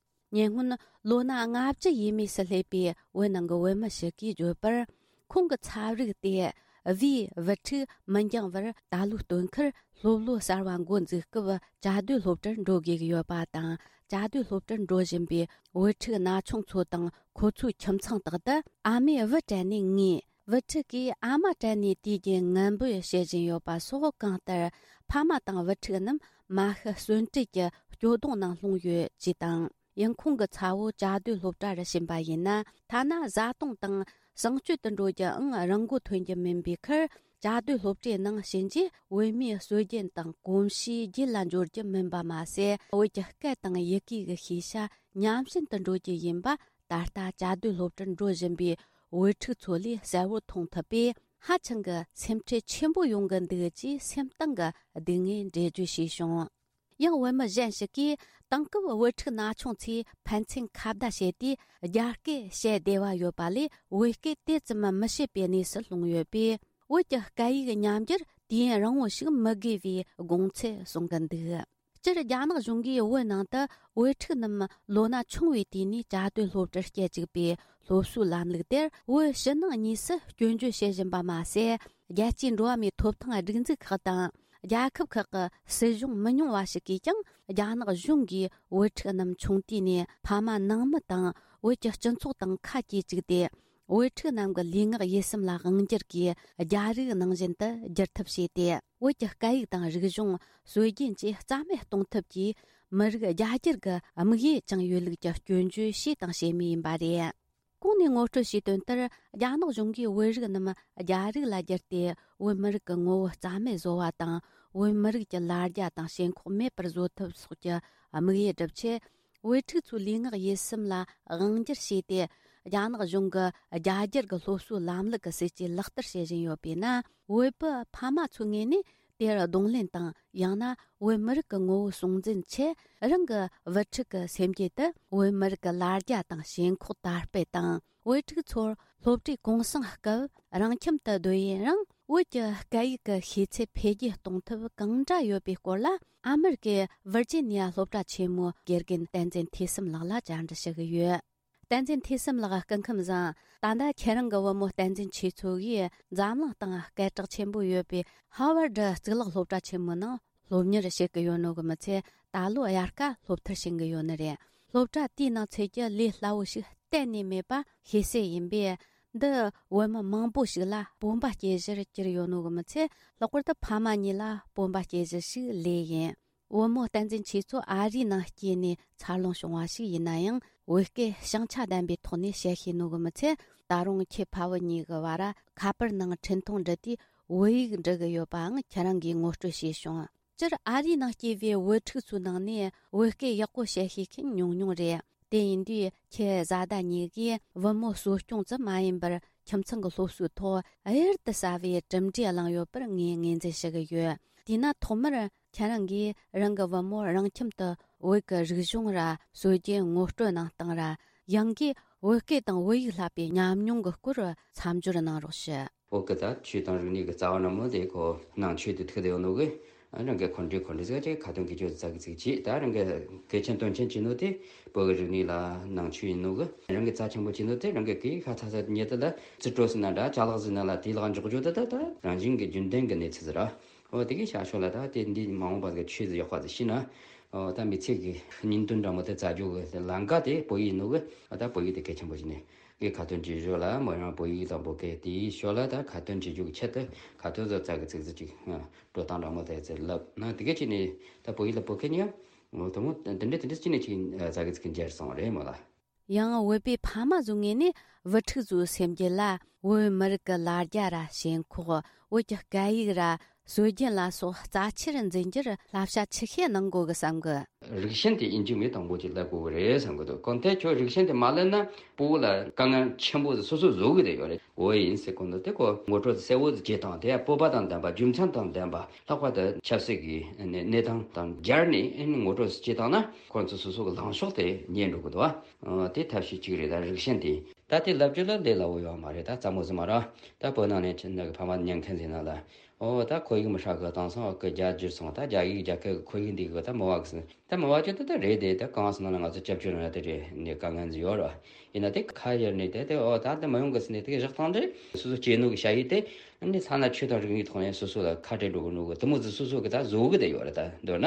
ཉེ་སྔོན་ལོ་ན་ལྔ་བཅུ་ཡས་མས་སུ་སླེབས་པའི་བོད་ནང་གི་བོད་མི་ཞིག་གིས་བརྗོད་པར། ཁོང་གི་ཚབ་རིགས་དེ་བིའི་བུ་ཕྲུག་མི་འགྱངས་བར་ད་ལོའི་སྟོན་ཁར་སློབ་ལོ་གསར་བ་འགོ་འཛུགས་སྐབས་བཅའ་སྡོད་སློབ་གྲྭར་འགྲོ་དགོས་ཀྱི་ཡོད་པ་དང་། བཅའ་སྡོད་སློབ་གྲྭར་འགྲོ་བཞིན་པའི་བུ་ཕྲུག་ན་ཆུང་ཚོ་དང་ཁོ་ཚོའི་ཁྱིམ་ཚང་དག་ཏུ་ཨ་མས་བུ་དྲན་ནས་ངུས། བུ་ཕྲུག་གིས་ཨ་མ་དྲན་ནས་དུས་རྒྱུན་ངན་འབོད་བྱེད་བཞིན་ཡོད་པ་སོགས། གང་ལྟར་ཕ་མ་དང་བུ་ཕྲུག་རྣམས་མ་ཤི་གསོན་བྲལ་གྱི་སྐྱོ་གདུང་ནང་ལྷུང་ཡོད་ཅེས་དང་། ཡང་ཁོང་གི་ཚ་བོ་བཅའ་སྡོད་སློབ་གྲྭ་རུ་ཕྱིན་པ་ཡིན་ན། ཐ་ན་བཟའ་བཏུང་དང་གསང་སྤྱོད་དུ་འགྲོ་རྒྱུའང་རང་མགོ་ཐོན་རྒྱུ་མིན་པའི་ཁར། བཅའ་སྡོད་སློབ་གྲྭའི་ནང་ཕྱིན་རྗེས་བོད་མིའི་སྲོལ་རྒྱུན་དང་གོམས་གཤིས་རྒྱུད་ལ་འབྱོར་རྒྱུ་མིན་པ་མ་ཟད། བོད་ཀྱི་སྐད་དང་ཡི་གེ་གི་ཤེས་བྱ་ཉམས་ཞན་དུ་འགྲོ་རྒྱུ་ཡིན་པ། ད་ལྟ་བཅའ་སྡོད་སློབ་གྲྭར་འགྲོ་བཞིན་པའི་བུ་ཕྲུག་ཚོ་ལས་གསལ་བོར་མཐོང་ཐུབ་པས། ཧ་ཅང་གི་སེམས་ཁྲལ་ཆེན་པོ་ཡོང་གི་འདུག་ཅེས་སེམས་གཏིང་གི་སྡུག་བསྔལ་འགྲེལ་བརྗོད་བྱས་བྱུང་། ཡང་བོད་མི་གཞན་ཞིག་གིས། དེང་སྐབས་བུ་ཕྲུག་ན་ཆུང་ཚོས་ཕན་ཚུན་ཁ་བརྡ་བྱས་ཏེ་རྒྱ་སྐད་བཤད་བདེ་བ་ཡོད་པ་ལས། བོད་སྐད་དེ་ཙམ་མི་བཤད་པའི་གནས་སུ་ལྷུང་ཡོད་པས། བོད་ཀྱི་སྐད་ཡིག་ཉམས་འགྱུར་དུས་ཡུན་རིང་བོ་ཞིག་མི་དགོས་པའི་དགོངས་ཚུལ་གསུང་གི་འདུག་སྤྱིར་རྒྱ་ནག་གཞུང་གིས་བོད་ནང་དུ་བོད་ཕྲུག་རྣམས་ལོ་ན་ཆུང་བའི་དུས་ནས་བཅའ་སྡོད་སློབ་གྲྭར་སྐྱེལ་བཅུག་པའི་སློབ་གསོའི་ལམ་ལུགས་དེར། བོད་ཕྱི་ནང་གཉིས་སུ་སྐྱོན་བརྗོད་བྱེད་བཞིན་པ་མ་ཟད། རྒྱལ་སྤྱིའི་འགྲོ་བ་མིའི་ཐོབ་ཐང་སྒྲིག་འཛུགས་ཁག་དང་། རྒྱལ་ཁབ་ཁག་གི་སྲིད་གཞུང་མི་ཉུང་བ་ཞིག་གིས་ཀྱང་། རྒྱ་ནག་གཞུང་གིས་བོད་ཕྲུག་རྣམས་ཆུང་དུས་ནས་ཕ་མ་ནང་མི་དང་བོད་ཀྱི་སྤྱི་ཚོགས་དང་ཁ་གྱེས་བཅུག་སྟེ། བོད་ཕྲུག་རྣམས་ཀྱི་ལུས་ངག་ཡིད་གསུམ་ལ་དབང་སྒྱུར་གྱིས། རྒྱ་རིགས་ནང་བཞིན་དུ་འགྱུར་ཐབས་བྱས་ཏེ། བོད་ཀྱི་སྐད་ཡིག་དང་རིག་གཞུང་། སྲོལ་རྒྱུན་བཅས་རྩ་མེད་གཏོང་ཐབས་ཀྱིས། མི་རིགས་རྒྱ་སྒྱུར་གྱི་དམིགས་ཡུལ་བཅངས་ཡོད་ལུགས་ཀྱི་སྐྱོན་བརྗོད་བྱས་དང་བྱེད་མུས་ཡིན་པ་རེད། གོང་ནས་ངོ་སྤྲོད་བྱས་དོན་ལྟར། རྒྱ་ནག་གཞུང་གིས་བོད་རིགས་རྣམས་རྒྱ་རིགས་ལ་བསྒྱུར་ཏེ། བོད་མི་རིགས་ཀྱི་ངོ་བོ་རྩ་མེད་བཟོ་བ་དང་། བོད་མི་རིགས་ཀྱི་ལ་རྒྱ་དང་ཞེན་ཁོག་མེད་པར་བཟོ་ཐབས་སོགས་ཀྱི་དམིགས་ཡུལ་བསྒྲུབ་ཆེད། བོད་ཕྲུག་ཚོའི་ལུས་ངག་ཡིད་གསུམ་ལ་དབང་སྒྱུར་བྱས་ཏེ། རྒྱ་ནག་གཞུང་གི་རྒྱ་སྒྱུར་གྱི་སློབ་གསོའི་ལམ་ལུགས་ཀྱི་སྲིད་ཇུས་ལག་བསྟར་བྱེད་བཞིན་ཡོད་པས་ན། བོད་པའི་ཕ་མ་ཚོའི་ངོས་ནས་དེར་གདོང་ལེན་དང་། ཡང་ན་བོད་མི་རིགས་ཀྱི་ངོ་བོ་སྲུང་འཛིན་ཆེད། རང་གི་བུ་ཕྲུག་གི་སེམས་རྒྱུད་དུ་བོད་མི་རིགས་ཀྱི་ལ་རྒྱ་དང་ཞེན་ཁོག་དར་སྤེལ་དང་། བོད་ཕྲུག་ཚོར་སློབ་གྲྭའི་གུང་སེང་སྐབས་རང་ཁྱིམ་དུ་སྡོད་ཡུན་རིང་བོད་ཀྱི་སྐད་ཡིག་གི་ཤེས་ཚད་འཕེལ་རྒྱས་གཏོང་ཐབས་གང་འདྲ་ཡོད་པའི་སྐོར་ལ། ཨ་མེ་རི་ཀའི་ཝིར་ཇི་ནི་ཡ་སློབ་གྲྭ་ཆེན་མོའི་དགེ་རྒན་བསྟན་འཛིན་ཐོས་བསམ་ལགས་ལ་བཅར་འདྲི་ཞུ་གི་ཡོད། བསྟན་འཛིན་ཐོས་བསམ་ལགས། སྐུ་ཁམས་བཟང་། ད་ལྟ་ཁྱེད་རང་གི་བུ་མོ་བསྟན་འཛིན་ཆོས་མཚོ་ཡིས་འཛམ་གླིང་སྟེང་སྐད་གྲགས་ཆེན་པོ་ཡོད་པའི་ཧ་ཝར་ཌི་གཙུག་ལག་སློབ་གྲྭ་ཆེན་མོའི་ནང་སློབ་གཉེར་བྱེད་ཀྱི་ཡོད་ནོ་གི་མི་ཚད། ད་ལོ་དབྱར་ཁ་སློབ་མཐར་ཕྱིན་གྱི་ཡོད་ནི་རེད། སློབ་གྲྭ་དེའི་ནང་ཚུད་རྒྱུ་ལས་སླ་བོ་ཞིག་གཏན་ནས་མེད་པ་ཤེས་གསལ་ཡིན་པས། འདི་བུད་མེད་མང་པོ་ཞིག་ལ་སྤོབས་པ་སྐྱེ་གཞིར་གྱུར་ཡོད་ནོ་གི་མི་ཚད། ལྷག་པར་དུ་ཕ་མ་གཉིས་ལ་སྤོབས་པ་སྐྱེ་གཞི་ཞིག་ལོས་ཡིན། བུ་མོ་བསྟན་འཛིན་ཆོས་མཚོ་ཨ་རིའི་ནང་སྐྱེས་ནས་འཚར་ལོངས་བྱུང་བ་ཞིག་ཡིན་ན་ཡང་། བོད་སྐད་བྱང་ཆ་ལྡན་པའི་ཐོག་ནས་བཤད་ཤེས་ནོ་གི་མི་ཚད། ད་རུང་ཁྱེད་ཕ་བུ་གཉིས་ཀྱི་བར་ཁ་པར་ནང་འཕྲིན་ཐུང་འབྲི་དུས་བོད་ཡིག་འབྲི་གི་ཡོད་པའང་ཁྱེད་རང་གིས་ངོ་སྤྲོད་བྱས་བྱུང་། སྤྱིར་ཨ་རིའི་ནང་སྐྱེས་པའི་བུ་ཕྲུག་ཚོའི་ནང་ནས་བོད་སྐད་ཡག་པོ་བཤད་ཤེས་མཁན་ཉུང་ཉུང་རེད། དེ་ཡིན་དུས་ཁྱེད་བཟའ་ཟླ་གཉིས་ཀས་བུ་མོ་གསོ་སྐྱོང་ཙམ་མ་ཡིན་པར། ཁྱིམ་ཚང་གི་སློབ་གསོའི་ཐོག་གཡུར་དུ་ཟ་བའི་གྲུབ་འབྲས་བླངས་ཡོད་པར་ངས་ངོས་འཛིན་ཞུ་གི་ཡོད། དེས་ན་ཐོག་མར་ཁྱེད་རང་གིས་རང་གི་བུ་མོར་རང་ཁྱིམ་དུ་བོད་ཀྱི་རིག་གཞུང་ར་སྲོལ་རྒྱུན་ངོ་སྤྲོད་གནང་སྟངས་ར། ཡང་སྒོས་བོད་སྐད་དང་བོད་ཡིག་བསླབ་པའི་ཉམས་མྱོང་གི་སྐོར་མཚམས་སྦྱོར་གནང་རོགས་ཞུ། བོད་སྐད་དང་ཆོས་དང་རིག་གནས་ཀྱི་རྩ་བ་ནང་མོ་དེ་ཁོ་ནང་ཆོས་དེ་ཐུག་བསྡད་ཡོད་ནོ་གི། རང་གི་འཁོན་འགྲས་འཁོན་འགྲས་ཟེར་གྱི་ཁ་ཏོན་གྱི་ཆོས་ཙག་གི་ཚིག་བྱས། ད་རང་གི་གལ་ཆེན་དོན་ཆེན་བྱས་ནོ་དེ་བོད་ཀྱི་རིག་གནས་ལ་ནང་ཆོས་ཡིན་ནོ་གི། རང་གི་རྩ་ཆེན་པོ་བྱས་ནོ་དེ་རང་གི་གི་ཁ་ཚ་ཚ་ཉེ་དུ་ལ་རྩིས་སྤྲོད་ཟེར་ན་འདྲ། ཅ་ལག་ཟེར་ན་ལ་དེའི་ལག་འཇོག་རྒྱུ་དེ། ད་ད་རང་བཞིན་གྱི་རྒྱུན་ལྡན་གྱི་གནས་ཚུལ་ཟེར་ར། འོ་དེ་གི་ཤ་ཤོ་ལ་ད་དེ་འདི་མ་འོངས་པ་གི་ཆོས་ཟིག་ཡག་པ་ཟིག་ཤེས་ན། འོ་ད་མི་ཚེ་གི་སྙིང་དོན་འདྲ་མོ་དེ་བཙལ་རྒྱུ་གི་ལམ་ཀ་དེ་བོད་ཡིག་ནོ་གི། འོ་ད་བོད་ཡིག་དེ་གལ་ཆེན་པོ་ཞིག་ནས་གི་ཁ་ཏོན་བྱེད་ཞོར་ལ་མོ་རང་བོད་ཡིག་དང་བོད་སྐད་དེའི་ཞོར་ལ་ད་ཁ་ཏོན་བྱེད་རྒྱུ་གི་ཆེད་དུ་ཁ་ཏོན་བཟོ་ཙག་གི་ཚིག་ཟིག་ཅིག་འགྲོ་སྟངས་འདྲ་མོ་དེ་ཚེ་ལབ་ན། དེ་གི་ཅིག་ནས་ད་བོད་ཡིག་ལ་བོད་སྐད་ཉོ་འོ་དེ་མོ་དེ་འདྲ་དེ་འདྲ་ཅིག་ནས་ཅིག་ཙག་གི་ཚིག་འཇལ་སོང་རེད་མོ་ལ། ཡང་བོད་པའི་ཕ་མ་ཚོའི་ངོས་ནས་བུ་ཕྲུག་ཚོའི་སེམས་རྒྱུད་ལ་བོད་མི་རིགས་ཀྱི་ལ་རྒྱ་ར་ཞེན་ཁོག་བོད་ཀྱི་སྐད་ཡིག་ར་ སྲོལ་རྒྱུན་ལ་སོགས་རྩ་ཆེར་འཛིན་རྒྱུར་བསླབ་བྱ་ཆི་ཤེས་གནང་དགོས་གི་བསམ་གི། རིགས་ཞེན་དེ་ཨིན་ཇི་མི་དང་པོ་ཅིག་བསླབ་དགོས་གི་རེད་བསམ་གི་འདུག་གང་ལྟར་ཁྱོད་རིགས་ཞེན་དེ་མ་བསླབ་ན་སྤོ་བོ་ལ་དཀའ་ངལ་ཆེན་པོ་ཟིག་སོ་སོ་བཟོ་གི་རེད་ཡོད་རེད། འོ་ཡིན་ཟེར་གོ་འདུག་དེ་ཁོ་ངོ་སྤྲོད་གསལ་བོ་ཟིག་བྱེད་སྟངས་དེ་ཡང་སྤོབས་པ་དང་ལྡན་པ་རྒྱུ་མཚན་དང་ལྡན་པ་ལྷག་པར་དུ་ཆབ་སྲིད་ཀྱི་གནས་སྟངས་དང་སྦྱར་ནས་ངོ་སྤྲོད་ཟིག་བྱེད་སྟངས་ན་ཁོ་ཚོ་སོ་སོ་གི་ལངས་ཕྱོགས་དེ་རྙེད་འགྲོ་གི་འདུག་ཨ། དེ་ཐབས་ཤེས་གཅིག་རེད། ད་རིགས་ཞེན་དེ་ད་དེ་ལབ་རྒྱུ་ལ་ལས་སླ་བོ་ཡོད་མ་རེད། ད་ཙམ་མོ་ཟིག་མ་རེད། ད་བོད་ནང་ནས་ཁྱེད་ནི་གི་ཕ་མ་ཉན་མཁན་ཟིག་ན་ལ། ཨོ་ད་ཁོར་ཡུག་མི་ཧྲ་གི་བཏང་སོང་། ཨོ་གི་རྒྱ་འགྱུར་སོང་། ད་རྒྱ་ཡིག་རྒྱ་སྐད་ཁོར་ཡུག་འདི་གི་ད་མི་བ་གི་ཟིན། ད་མི་བ་ཅི་ད་ད་རེད་དེ། ད་གང་སོང་ན་ང་ཚོ་སྐྱབས་བཅོལ་ན་དེ་རེད་ནས་དཀའ་ངལ་ཟིག་ཡོད་ར། ཡིན་ན་དེ་ཁ་གཡར་ནས་དེ་དེ་ཨོ་ད་དེ་མི་ཡོང་གི་ཟིན་ནས་དེ་གི་བཞག་སྟངས་དེ་སོ་སོ་སྐྱེས་ནོ་གི་ཞ་ཡི་དེ་ནི་ཐ་ན་ཆོས་དང་རིག་གནས་ཐོག་ནས་སོ་སོ་ལ་ཁ་བྲལ་འགྲོ་གི་ནོ་གི་དེ་མོ་ཟིག་སོ་སོ་གི་ད་བཟོ་གི་དེ་ཡོད་ར། ད་མདོར་ན་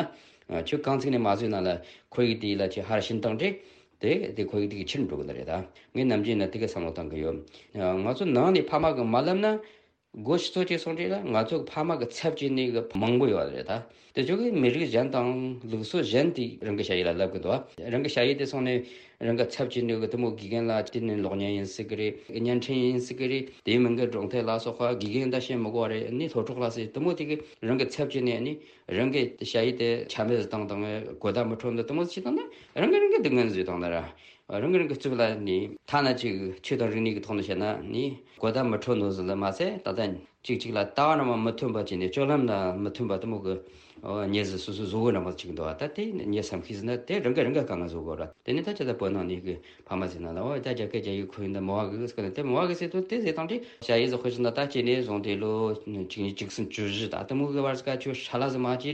ཁྱོད་གང་ཚིག་ནས་མ་བཟོས་ན་ལ་ཁོར་ཡུག་དེ་ལ་ཁྱོད་ཧར་ཕྱིན་སྟངས་དེ་དེ་དེ་ཁོར་ཡུག་དེ་གི་ཕྱིར་འགྲོ་གི་ནི་རེད། ད་ངས་ནམ་རྒྱུན་ན་དེ་གི་བསམ་བློ་བཏང་གི་ཡོད། ང་ཚོ་ནང་ནས་ཕ་མ་གི་མ་ལབ་ན། སྒོ་ཕྱི་ཚོ་གཅིག་སོང་དུས་ལ་ང་ཚོ་ཕ་མ་གི་ཚབ་བྱེད་ནི་གི་མང་པོ་ཡོད་རེད་ད། དེ་ཚོ་གི་མི་རིགས་གཞན་དང་ལུགས་སྲོལ་གཞན་དེ་རང་གི་ཞ་ཡི་ལ་ལབ་གི་འདུག་རང་གི་ཞ་ཡི་དེ་སོང་ནས་རང་གི་ཚབ་བྱེད་ནི་གི་དེ་མོ་དགེ་རྒན་ལ་དེ་ནི་གློག་བརྙན་ཡིན་སྲིད་གི་རེད། བརྙན་འཕྲིན་ཡིན་སྲིད་གི་རེད། དེའི་མིང་གི་སྒྲུང་དེབ་ལ་སོགས་པ་དགེ་རྒན་ད་བཤད་མི་དགོས་རེད། ནི་སློབ་གྲོགས་ལ་སྲིད་དེ་མོ་དེ་གི་རང་གི་ཚབ་བྱེད་ནས་ནི་རང་གི་ཞ་ཡི་དེ་ཆ་མེད་བཏང་དང་གོ་བརྡ་མི་འཕྲོད་འདི་དེ་མོ་ཞིག་བཏང་ན་རང་གི་རང་གི་སྡུག་བསྔལ་བཟོས་བཏང་ན་ར། རང་གི་རང་གི་རྩིབ་ལ་ནི་ཐ་ན་ཅིག་ཆོས་དང་རིག་གནས་ཀྱི་ཐོག་ནས་བཤད་ན་ནི་གོ་བརྡ་མི་འཕྲོད་ནོ་ཟིག་ལ་མ་ཟད། ད་ལྟ་གཅིག་གཅིག་ལ་ལྟ་བ་རང་མ་མི་མཐུན་པ་བྱས་ནས་སྤྱོད་ལམ་ལ་མི་མཐུན་པ་དེ་མོ་གི་ཨོ་ཉེས་ཟིག་སོ་སོ་བཟོ་གི་རང་མ་ཅིག་འདུག་ད་དེ་ངས་བསམ་ཤེས་ཟིན་ན་དེ་རང་གི་རང་གི་དཀའ་ངལ་བཟོ་དགོས་ར། དེ་ནི་ད་ཅི་ད་བོད་ནང་ནས་གི་ཕ་མ་ཟིག་ན་ལ་ཨོ་ད་རྒྱ་སྐད་རྒྱ་ཡིག་ཁོ་ཡིན་ད་མོ་བ་གི་ཟིག་གི་དེ་མོ་བ་གི་ཟིག་ཏུ་དེ་ཟིག་དང་དེ་ཞ་ཡི་ཟིག་དཔེ་བཞག་ན་ད་ཅི་ནས་བཟུང་དེ་ལོ་གཅིག་གཉིས་གཅིག་གསུམ་བཅུ་བཞི་ད་དེ་མོ་གི་བར་ཟིག་ག་ཆོས་ཧྲ་ལ་ཟིག་མ་བྱས་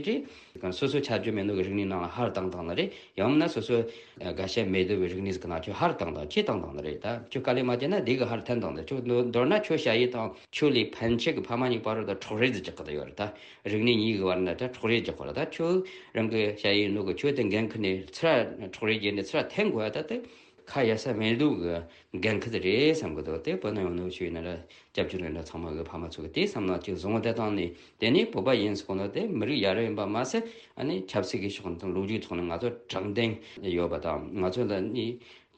དེ། སོ་སོ་ཆ་རྒྱུས་མེད་ནོ་གི་རིག་གནས་ནང་ལ་ཧར་བཏང་བཏང་ནི་རེད། ཡང་མིན་ན་སོ་སོ་དགའ་ཤ་མེད་དོ་བའི་རིག་གནས་ཟིག་ནང་ཁྱོད་ཧར་བཏང་དང་ཅི་བཏང་བཏང་ནི་རེད། ད་ཁྱོད་དཀའ་ལས་མ་བྱས་ན་འདི་གི་ཧར་འཐེན་བཏང་ནི་ཁྱོད་མདོར་ན་ཁྱོད་ཞ་ཡི་དང་ཁྱོད་ལས་ཕན་ཆད་གི་ཕ་མ་གཉིས་བར་དུ་འཕྲོག་རེས་ཟིག་རྒྱག་གི་ད་ཡོད་རེད། ད་རིག་གནས་གཉིས་གི་བར་ན་ད་འཕྲོག་རེས་རྒྱག་གི་རེད། ད་ཁྱོད་རང་གི་ཞ་ཡི་ནོ་གི་ཁྱོད་དེ་འགན་ཁུར་ནས་ཚུར་འཕྲོག་རེས་བརྒྱབ་ནས་ཚུར་འཐེན་དགོས་ད་དེ། ཁ་གཡར་ས་མེད་དུ་གི་འགན་ཁུར་དེ་རེད་བསམ་གི་འདུག་དེ་བོད་ནང་ཡོང་ནོ་ཆོས་ཡིན་ན་ར་སྐྱབས་བཅོལ་ཡིན་ན་ཚང་མ་གི་ཕ་མ་ཚོ་གི་དེ་བསམ་ན་ཅིག་བཟུང་བ་དེ་བཏང་ནས་དེ་ནས་བོད་པ་ཡིན་ཟེར་གོ་ནོ་དེ་མི་རིགས་ཡ་རབས་ཡིན་པ་མ་ཟད། ཨ་ནི་ཆབ་སྲིད་ཀྱི་ཕྱོགས་དང་ལོ་རྒྱུས་ཐོག་ནས་ང་ཚོ་དྲང་བདེན་ཡོད་པ་དང་ང་ཚོ་ལ་ནི་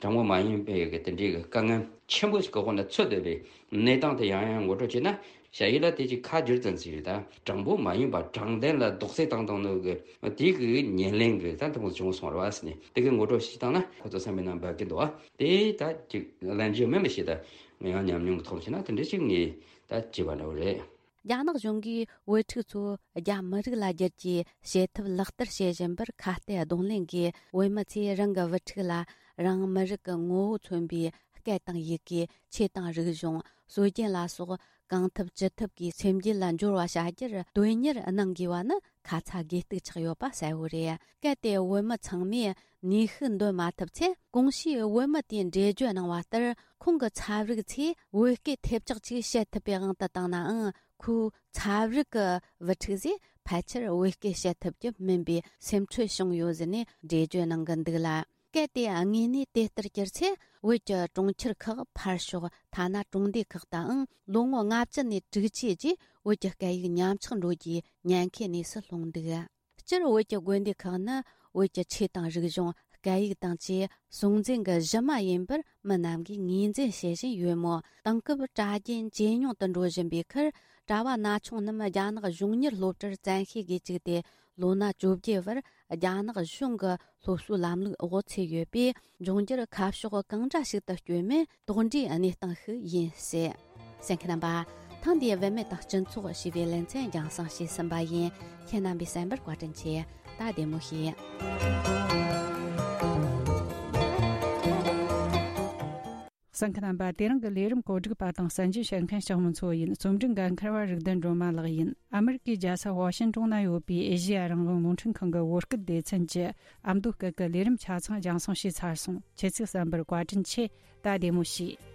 དྲང་པོ་མ་ཡིན་པའི་གི་དེ་འདྲའི་གི་དཀའ་ངལ་ཆེན་པོ་ཞིག་གི་འོག་ནས་ཚུད་བསྡད་པའི་གནས་སྟངས་དེ་ཡང་ཡང་ངོ་སྤྲོད་བྱས་ན། ཞ་ཡི་ལ་དེ་ཅིག་ཁ་བསྒྱུར་ཙམ་ཞིག་རེད། ད་དྲང་པོ་མ་ཡིན་པ་དྲང་བདེན་ལ་རྡོག་རྫིས་བཏང་བཏང་ནོ་གི་དེ་གི་ཉེར་ལེན་གི་ད་དེ་མོ་བྱུང་སོང་ར་བ་ཟེར་ནས་དེ་གི་ངོ་སྤྲོད་ཞིག་བཏང་ན་ཁོ་ཚོ་བསམ་པའི་ནང་འབབ་ཀྱི་འདུག་བ། དེ་ད་ཅིག་ལན་རྒྱུ་མེད་མི་ཤེས། ད་ང་ཡང་ཉམས་མྱོང་གི་ཐོག་བྱས་ན་དེ་འདྲ་ཞིག་ངས་ད་བྱས་པ་འདྲ་བོ་རེད། རྒྱ་ནག་གཞུང་གིས་བུ་ཕྲུག་ཚོ་རྒྱ་མི་རིགས་ལ་བསྒྱུར་རྒྱུའི་བྱེད་ཐབས་ལག་བསྟར་བྱེད་བཞིན་པར་ཁ་གཏད་གདོང་ལེན་གྱིས་བོད་མི་ཚོས་རང་གི་བུ་ཕྲུག་ལ་རང་མི་རིགས་ཀྱི་ངོ་བོ་མཚོན་པའི་སྐད་དང་ཡི་གེ་ཆོས་དང་རིག་གཞུང་སྲོལ་རྒྱུན་ལ་སོགས་གང་ཐུབ་ཅི་ཐུབ་ཀྱིས་སེམས་རྒྱུད་ལ་འབྱོར་བ་བྱ་རྒྱུར་དོན་གཉེར་གནང་དགོས་པ་ནི་ཁ་ཚ་དགོས་གཏུགས་ཆགས་ཡོད་པ་གསལ་བོ་རེད། གལ་ཏེ་བོད་མི་ཚང་མས་ནུས་ཤུགས་འདོན་མ་ཐུབ་ཚེ། གོང་ཞུས་བོད་མི་དེས་འགྲེལ་བརྗོད་གནང་བ་ལྟར་ཁོང་གི་ཚབ་རིགས་ཚོས་བོད་སྐད་ཐེབས་ཆག་ཅིག་བཤད་ཐུབ་པའི་དབང་དུ་བཏང་ནའང་། ཁོའི་ཚབ་རིགས་ཀྱི་བུ་ཕྲུག་ཚོས་ཕལ་ཆེར་བོད་སྐད་བཤད་ཐུབ་རྒྱུ་མིན་པའི་སེམས་ཁྲལ་བྱུང་ཡོད་ཟེར་ནས་འགྲེལ་བརྗོད་གནང་གི་འདུག་ལ། གལ་ཏེ་དངོས་གནས་དེ་ལྟར་གྱུར་ཚེ། བོད་ཀྱི་གྲོང་ཁྱེར་ཁག་ཕར་ཞོག་ཐ་ན་གྲོང་སྡེ་ཁག་དུའང་ལོ་ངོ་ལྔ་བཅུ་ནས་དྲུག་ཅུའི་རྗེས་བོད་ཀྱི་སྐད་ཡིག་ཉམས་ཆག་འགྲོ་རྒྱུའི་ཉེན་ཁའི་གནས་སུ་ལྷུང་འདུག་སྤྱིར་བོད་ཀྱི་དགོན་སྡེ་ཁག་ནི་བོད་ཀྱི་ཆོས་དང་རིག་གཞུང་། སྐད་ཡིག་དང་བཅས་སྲོང་བཙན་གྱི་གཞི་མ་ཡིན་པར་མི་རྣམས་ཀྱིས་ངོས་འཛིན་བྱེད་བཞིན་ཡོད་མོད། དེང་སྐབས་གྲྭ་རྒྱུན་ཇེ་ཉུང་དུ་འགྲོ་བཞིན་པའི་ཁར། གྲྭ་བ་ན་ཆུང་རྣམས་རྒྱ་ནག་གཞུང་གཉེར་སློབ་གྲྭར་བཙན་ཤེད་ཀྱིས་བཅུག་སྟེ། ལོ་ན་བཅོ་བརྒྱད་བར་རྒྱ་ནག་གཞུང་གི་སློབ་གསོའི་ལམ་ལུགས་འོག་ཚུད་ཡོད་པས། འབྱུང་འགྱུར་ཁ་ཕྱོགས་གང་འདྲ་ཞིག་ཏུ་བསྐྱོད་མིན་དོགས་འདྲིའི་གནས་སྟངས་ཤིག་ཡིན་སྲིད། གསན་མཁན་རྣམ་པ། ཐེངས་འདིའི་བུད་མེད་དང་སྤྱི་ཚོགས་ཞེས་པའི་ལེ་ཚན་རྒྱང་སྲིང་བྱས་ཟིན་པ་ཡིན། ཁྱེད་རྣམ་པས་གསན་པར་བཀའ་དྲིན་ཆེ། ད་བདེ་མོ་བྱོས། གསན་མཁན་རྣམ་པ། དེ་རིང་གི་ལས་རིམ་གོ་སྒྲིག་པ་དང་གསན་རྒྱུ་བྱེད་མཁན་ལྕགས་མོ་མཚོ་ཡིན། རྩོམ་སྒྲིག་འགན་འཁུར་བ་རིག་ལྡན་སྒྲོལ་མ་ལགས་ཡིན། ཨ་མི་རི་ཀའི་རྒྱལ་ས་ཝ་ཤིན་ཏོན་ན་ཡོད་པའི་ཨེ་ཤེ་ཡ་རང་དབང་རླུང་འཕྲིན་ཁང་གི་བོད་སྐད་སྡེ་ཚན་གྱི་ཨ་མདོ་སྐད་ཀྱི་ལས་རིམ་ཆ་ཚང་རྒྱང་སྲིང་བྱས་ཚར་སོང་། ཁྱེད་ཚོས་གསན་པར་བཀའ་དྲིན་ཆེ། ད་བདེ་མོ་བྱོས།